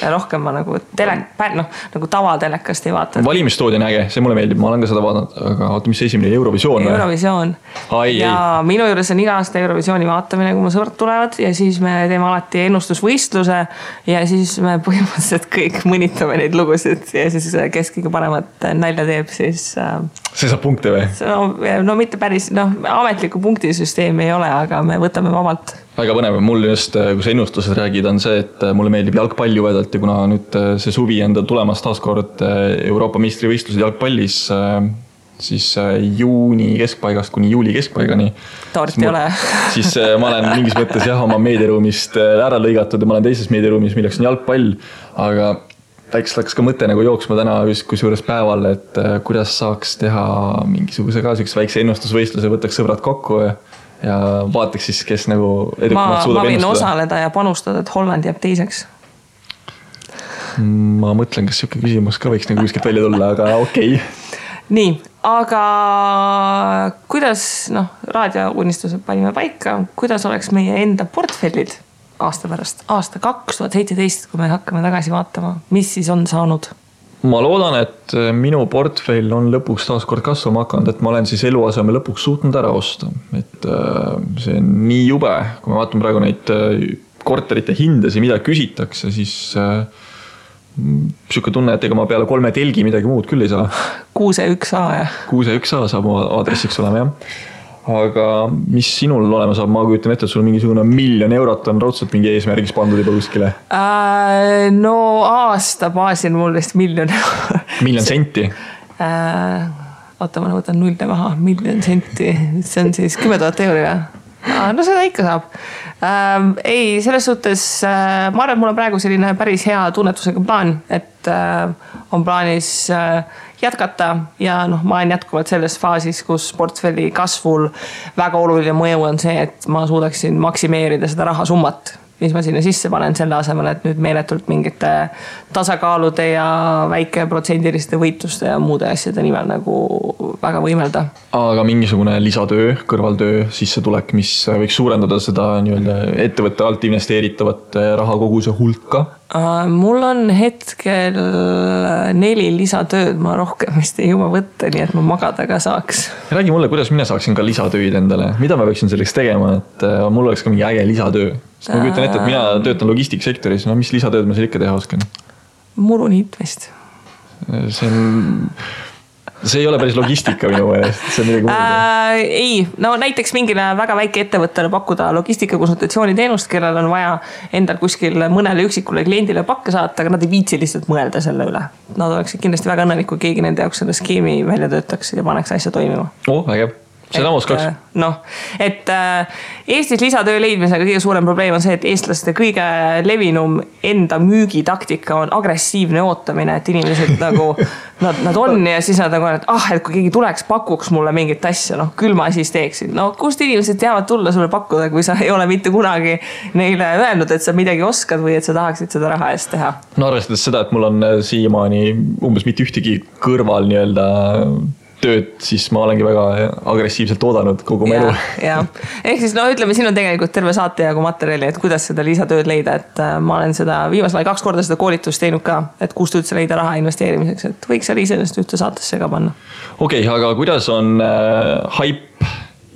Ja rohkem ma nagu nagu tavatelekast ei vaata. Valimisstuudio on äge, see mulle meeldib, ma olen ka seda vaadanud, aga oota, mis see esimene Eurovisioon? Eurovisioon. Ja minu juures on iga aasta Eurovisiooni vaatamine, kui mu sõbrad tulevad ja siis me teeme alati ennustusvõistluse ja siis me põhimõtteliselt kõik mõnitame neid lugusid ja siis kes kõige paremat nalja teeb, siis see saab punkte või? No mitte päris, ametliku punktisüsteemi ei ole, aga me võtame vabalt. Väga põnev, mul just, kui sa ennustused räägid, on see, et mulle meeldib jalgpalli vedalt ja kuna nüüd see suvi enda tulemas taaskord Euroopa meistrivõistlused jalgpallis, siis juuni keskpaigast kuni juuli keskpaigani. Taart ei ole. Siis ma olen mingis mõttes oma meediaruumist ära lõigatud ja ma olen teises meediaruumis, milleks on jalgpall, aga väikselt hakkas ka mõte nagu jooksma täna kusjuures päeval, et kuidas saaks teha mingisuguse ka väikse ennustusvõistluse, võtaks sõbrad kokku ja vaataks siis, kes nagu edukamalt suudab ennustada. Ma võin osaleda ja panustada, et Holland jääb teiseks. Ma mõtlen, kas siuke küsimus ka võiks nagu kuskilt välja tulla, aga okei. Nii, aga kuidas, raadiounistused panime paika, kuidas oleks meie enda portfellid aasta pärast, aasta 2017, kui me hakkame tagasi vaatama, mis siis on saanud? Ma loodan, et minu portfell on lõpuks taas kord kasvama hakanud, et ma olen siis eluaseme lõpuks suutnud ära osta. Et see on nii jube, kui me vaatame praegu neid korterite hindasi, mida küsitakse, siis siuke tunne, et ega ma peale 3 telgi midagi muud küll ei saa. 6-1A, jah. 6-1A saab aadressiks olema, jah. Aga mis sinul olema saab, ma kujutan ette, et sul mingisugune 1 000 000 eurot on raudselt mingi eesmärgis pandud juba kuskile? No aasta baasil mul vist 1 000 000. 1 000 senti? Oota, ma võtan 0 maha, 1 000 senti. See on siis 10 000 euri, jah? No seda ikka saab. Ei, selles suhtes, ma arvan, et mul on praegu selline päris hea tunnetusega plaan, et on plaanis jätkata ja ma olen jätkuvalt selles faasis, kus portfelli kasvul väga oluline mõju on see, et ma suudaksin maksimeerida seda rahasummat, mis ma sinna sisse panen selle asemel, et nüüd meeletult mingite tasakaalude ja väike protsendiliste võitluste ja muude asjade nimel nagu väga võimelda. Aga mingisugune lisatöö, kõrvaltöö, sissetulek, mis võiks suurendada seda ettevõtte alt investeeritavat rahakoguse hulka? Mul on hetkel 4 lisatööd, ma rohkem vist ei jõua võtta, nii et ma magada ka saaks. Räägi mulle, kuidas mina saaksin ka lisatööd endale, mida ma võiksin selleks tegema, et mul oleks ka mingi äge lisatöö. Sest ma kujutan ette, et mina töötan logistiksektoris, mis lisatööd ma seal ikka teha oskan? Muru niitmist. See ei ole päris logistika minu meelest, see on midagi muuda. Ei, näiteks mingile väga väike ettevõttele pakkuda logistikakonsultatsiooniteenust, kellel on vaja endal kuskil mõnele üksikule kliendile pakke saata, aga nad ei viitsi lihtsalt mõelda selle üle. Nad oleksid kindlasti väga õnnelik, kui keegi nende jaoks selle skeemi välja töötaks ja paneks asja toimima. Äge. Seda ma oskaks. Et Eestis lisatöö leidmisega kõige suurem probleem on see, et eestlaste kõige levinum enda müügitaktika on agressiivne ootamine, et inimesed nagu, nad on ja siis nad nagu, et kui keegi tuleks, pakuks mulle mingit asja, küll ma siis teeksin. Kust inimesed teavad tulla sulle pakkuda, kui sa ei ole mitte kunagi neile öelnud, et sa midagi oskad või et sa tahaksid seda raha eest teha? Arvestades seda, et mul on siiamaani umbes mitte ühtegi kõrval tööd, siis ma olengi väga agressiivselt oodanud kogu mu elu. Ehk siis ütleme, siin on tegelikult terve saate jagu materjali, et kuidas seda lisatööd leida, et ma olen seda viimasel 2 korda seda koolitust teinud ka, et kust üldse leida raha investeerimiseks, et võiks seal iseenesest ühte saatesse ka panna. Okei, aga kuidas on hype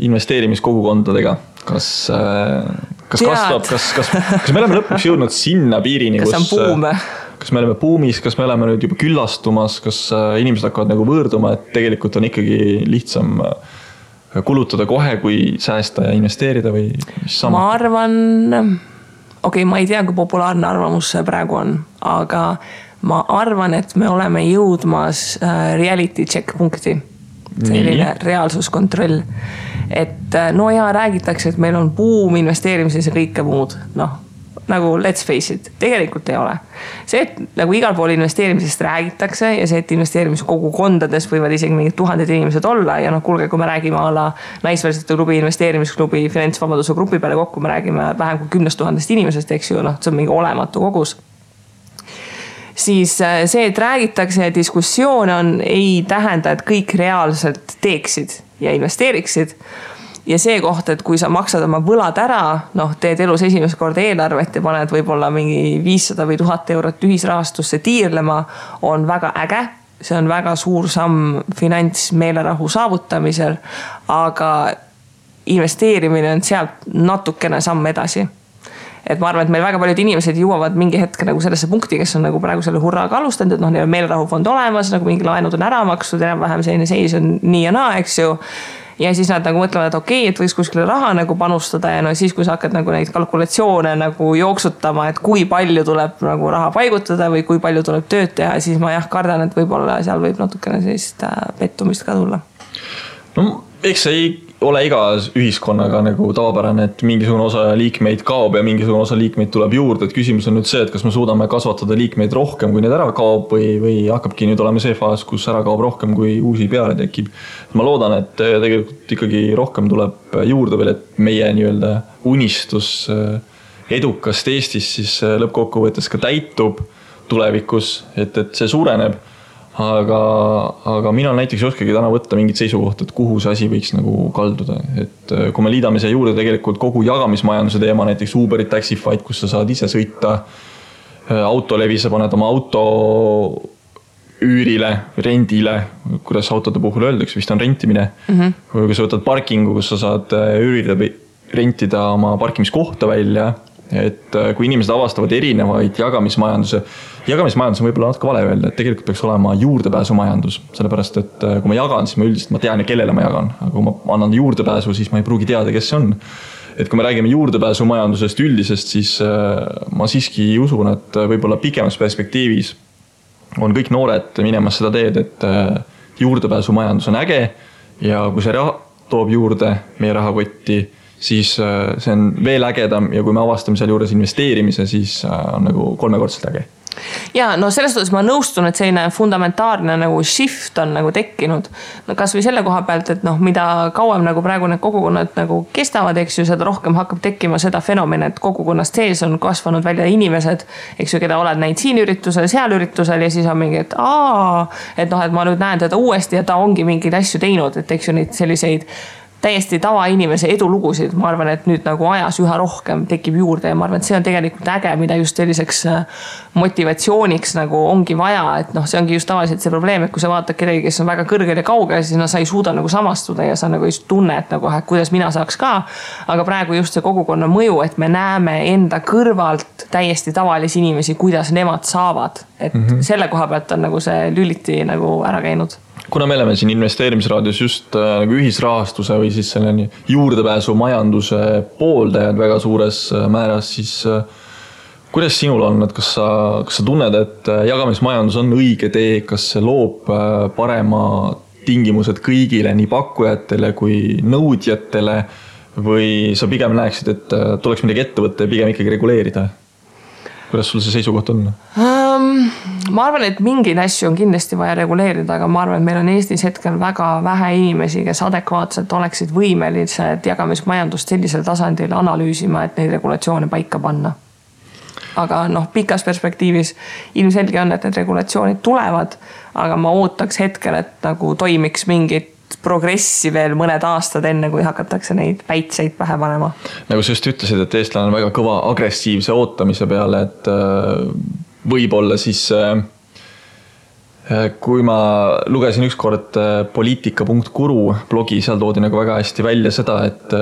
investeerimiskogukondadega? Kas kasvab, kas me oleme lõpuks jõudnud sinna piirini, kas on buum? Kas me oleme buumis, kas me oleme nüüd juba küllastumas, kas inimesed hakkavad nagu võõrduma, et tegelikult on ikkagi lihtsam kulutada kohe, kui säästa ja investeerida või mis sama? Ma arvan, ma ei tea, kui populaarne arvamus see praegu on, aga ma arvan, et me oleme jõudmas reality check punkti. Selline reaalsuskontroll. Et no ja räägitakse, et meil on buum investeerimises ja kõike muud. Noh, nagu let's face it, tegelikult ei ole. See, et nagu igal pool investeerimisest räägitakse ja see, et investeerimiskogukondades võivad isegi mingid 1000 inimesed olla ja noh, kuulge, kui me räägime alla naisvälisete klubi, investeerimisklubi, finantsvabaduse grupi peale kokku, me räägime vähem kui 10 000 inimesest, eks ju, noh, see on mingi olematu kogus. Siis see, et räägitakse ja diskussioon on, ei tähenda, et kõik reaalselt teeksid ja investeeriksid. Ja see koht, et kui sa maksad oma võlad ära, noh, teed elus esimest korda eelarvet ja paned võib-olla mingi 500 või 1000 eurot ühisrahastusse tiirlema, on väga äge. See on väga suur samm finantsmeelerahu saavutamisel, aga investeerimine on sealt natukene samm edasi. Et ma arvan, et meil väga paljud inimesed jõuavad mingi hetk nagu sellesse punkti, kes on nagu praegu selle hurraaga alustanud, et noh, neil on meelerahufond olemas, nagu mingi laenud on ära makstud, enam-vähem selline seis on nii ja naa, eks ju. Ja siis nad nagu mõtlevad, et okei, et võiks kuskile raha nagu panustada ja no siis, kui sa hakkad nagu neid kalkulatsioone nagu jooksutama, et kui palju tuleb nagu raha paigutada või kui palju tuleb tööd teha, siis ma kardan, et võib-olla seal võib natukene sellist pettumist ka tulla. No, eks see ei ole iga ühiskonnaga nagu tavapärane, et mingisugune osa liikmeid kaob ja mingisugune osa liikmeid tuleb juurde, et küsimus on nüüd see, et kas me suudame kasvatada liikmeid rohkem, kui need ära kaob või hakkabki nüüd olema see faas, kus ära kaob rohkem, kui uusi peale tekib. Ma loodan, et tegelikult ikkagi rohkem tuleb juurde veel, et meie nii-öelda unistus edukast Eestis siis lõppkokkuvõttes ka täitub tulevikus, et see suureneb. Aga mina näiteks ei oskagi täna võtta mingit seisukohta, et kuhu see asi võiks nagu kalduda. Et kui me liidame siia juurde tegelikult kogu jagamismajanduse teema, näiteks Uberit, Taxify'd, kus sa saad ise sõita autolevi, sa paned oma auto üürile, rendile, kuidas autode puhul öeldakse, vist on rentimine. Kui sa võtad parkingu, kus sa saad üürida või rentida oma parkimiskohta välja, et kui inimesed avastavad erinevaid jagamismajandus on võib-olla natuke vale öelda, et tegelikult peaks olema juurdepääsumajandus, sellepärast, et kui ma jagan, siis ma üldiselt tean ja kellele ma jagan, aga kui ma annan juurdepääsu, siis ma ei pruugi teada, kes see on. Et kui me räägime juurdepääsumajandusest üldisest, siis ma siiski usun, et võib-olla pikemas perspektiivis on kõik noored minemas seda teed, et juurdepääsumajandus on äge ja kui see toob juurde meie rahakotti, siis see on veel ägedam ja kui me avastame seal juures investeerimise, siis on nagu 3-kordselt äge. Ja no selles suhtes ma nõustun, et selline fundamentaalne nagu shift on nagu tekkinud. No kas või selle koha pealt, et noh, mida kauem nagu praegu need kogukonnad nagu kestavad, eks ju, seda rohkem hakkab tekkima seda fenomeni, et kogukonnast sees on kasvanud välja inimesed, eks ju, keda oled näinud siin üritusel, seal üritusel ja siis on mingi, et et ma nüüd näen teda uuesti ja ta ongi mingeid asju teinud, et eks ju neid selliseid täiesti tavainimese edulugusid, ma arvan, et nüüd nagu ajas üha rohkem tekib juurde ja ma arvan, et see on tegelikult äge, mida just selliseks motivatsiooniks nagu ongi vaja, et noh, see ongi just tavaliselt see probleem, et kui sa vaatad kedagi, kes on väga kõrgel ja kaugel, siis sa ei suuda nagu samastuda ja sa nagu ei tunne, et nagu, kuidas mina saaks ka, aga praegu just see kogukonna mõju, et me näeme enda kõrvalt täiesti tavalisi inimesi, kuidas nemad saavad, et selle koha pealt on nagu see lüliti nagu ära käinud. Kuna me oleme siin investeerimisraadios just nagu ühisrahastuse või siis selle juurdepääsu majanduse pooldajad väga suures määras, siis kuidas sinul on, et kas sa tunned, et jagamismajandus on õige tee, kas see loob parema tingimused kõigile, nii pakkujatele kui nõudjatele või sa pigem näeksid, et tuleks midagi ette võtta ja pigem ikkagi reguleerida? Kuidas sul see seisukoht on? Ma arvan, et mingeid asju on kindlasti vaja reguleerida, aga ma arvan, et meil on Eestis hetkel väga vähe inimesi, kes adekvaatselt oleksid võimelised jagamismajandust sellisel tasandil analüüsima, et neid regulatsioone paika panna. Aga noh, pikas perspektiivis ilmselge on, et need regulatsioonid tulevad, aga ma ootaks hetkel, et nagu toimiks mingit progressi veel mõned aastad enne, kui hakatakse neid päitseid pähe panema. Nagu sa just ütlesid, et eestlane on väga kõva agressiivse ootamise peale, et võib-olla siis kui ma lugesin ükskord poliitika.guru blogi, seal toodi nagu väga hästi välja seda, et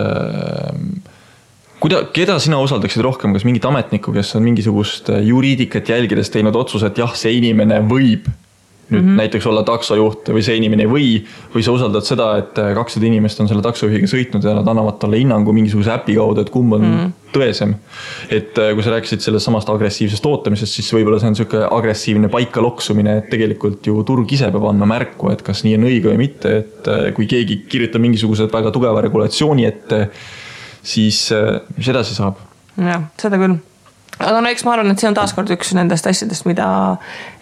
keda sina usaldaksid rohkem, kas mingit ametnikku, kes on mingisugust juriidikat jälgides teinud otsuse, et jah, see inimene võib nüüd näiteks olla taksojuht või see inimene või sa usaldad seda, et 200 inimest on selle taksojuhiga sõitnud ja nad annavad talle hinnangu mingisuguse äpi kaudu, et kumb on tõesem. Et kui sa rääkisid sellest samast agressiivsest ootamisest, siis võib-olla see on selline agressiivne paika loksumine, et tegelikult ju turg ise peab andma märku, et kas nii on õige või mitte, et kui keegi kirjutab mingisugused väga tugeva regulatsiooni ette, siis mis edasi saab? Jah, seda küll. Aga no eks ma arvan, et see on taaskord üks nendest asjadest, mida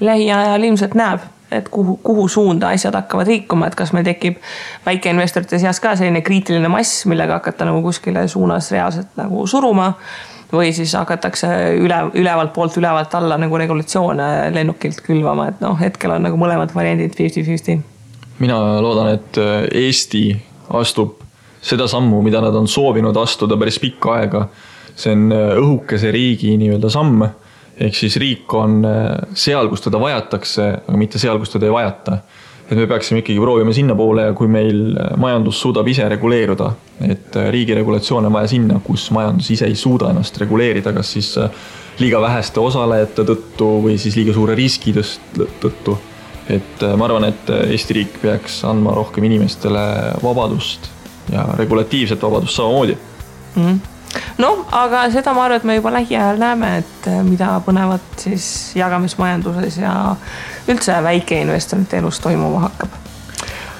lähiajal ilmselt näeb, et kuhu suunda asjad hakkavad liikuma, et kas meil tekib väikeinvestorite seas ka selline kriitiline mass, millega hakata nagu kuskile suunas reaalselt nagu suruma või siis hakatakse ülevalt poolt ülevalt alla nagu regulatsioone lennukilt külvama, et hetkel on nagu mõlemad variandid 50-50. Mina loodan, et Eesti astub seda sammu, mida nad on soovinud astuda päris pikka aega. See on õhukese riigi nii-öelda samm. Ehk siis riik on seal, kus teda vajatakse, aga mitte seal, kus teda ei vajata. Et me peaksime ikkagi proovima sinna poole ja kui meil majandus suudab ise reguleeruda, et riigi regulatsioon on vaja sinna, kus majandus ise ei suuda ennast reguleerida, kas siis liiga väheste osalejate tõttu või siis liiga suure riski tõttu. Et ma arvan, et Eesti riik peaks andma rohkem inimestele vabadust ja regulatiivset vabadust samamoodi. No, aga seda ma arvan, et me juba lähiajal näeme, et mida põnevat siis jagamismajanduses ja üldse väikeinvestorite elus toimuma hakkab.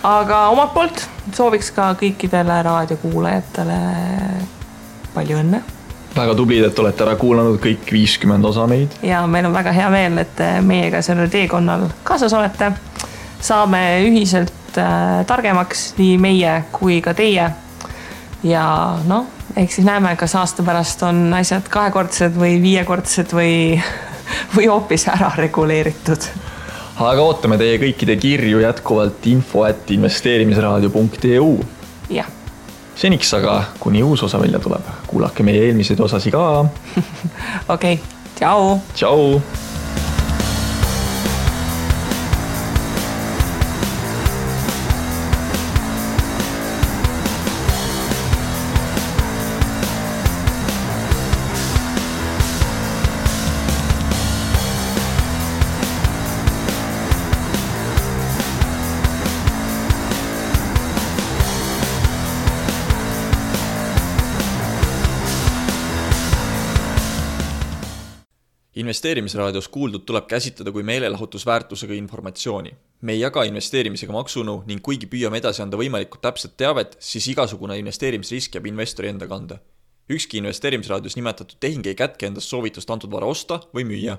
Aga omalt poolt sooviks ka kõikidele raadiokuulajatele palju õnne. Väga tublid, et olete ära kuulanud kõik 50 osa meid. Ja meil on väga hea meel, et meiega sellel teekonnal kaasas olete. Saame ühiselt targemaks nii meie kui ka teie. Ja ehk siis näeme, kas aasta pärast on asjad 2-kordsed või 5-kordsed või hoopis ära reguleeritud. Aga ootame teie kõikide kirju jätkuvalt info@investeerimisraadio.eu. Jah. Seniks aga, kuni uus osa välja tuleb, kuulake meie eelmiseid osasi ka. Okei, tšau. Tšau. Investeerimisraadios kuuldud tuleb käsitleda kui meelelahutusväärtusega informatsiooni. Me ei jaga investeerimisega maksunu ning kuigi püüame edasi anda võimalikult täpset teavet, siis igasugune investeerimisrisk jääb investori enda kanda. Ükski investeerimisraadios nimetatud tehing ei kätke endast soovitust antud vara osta või müüa.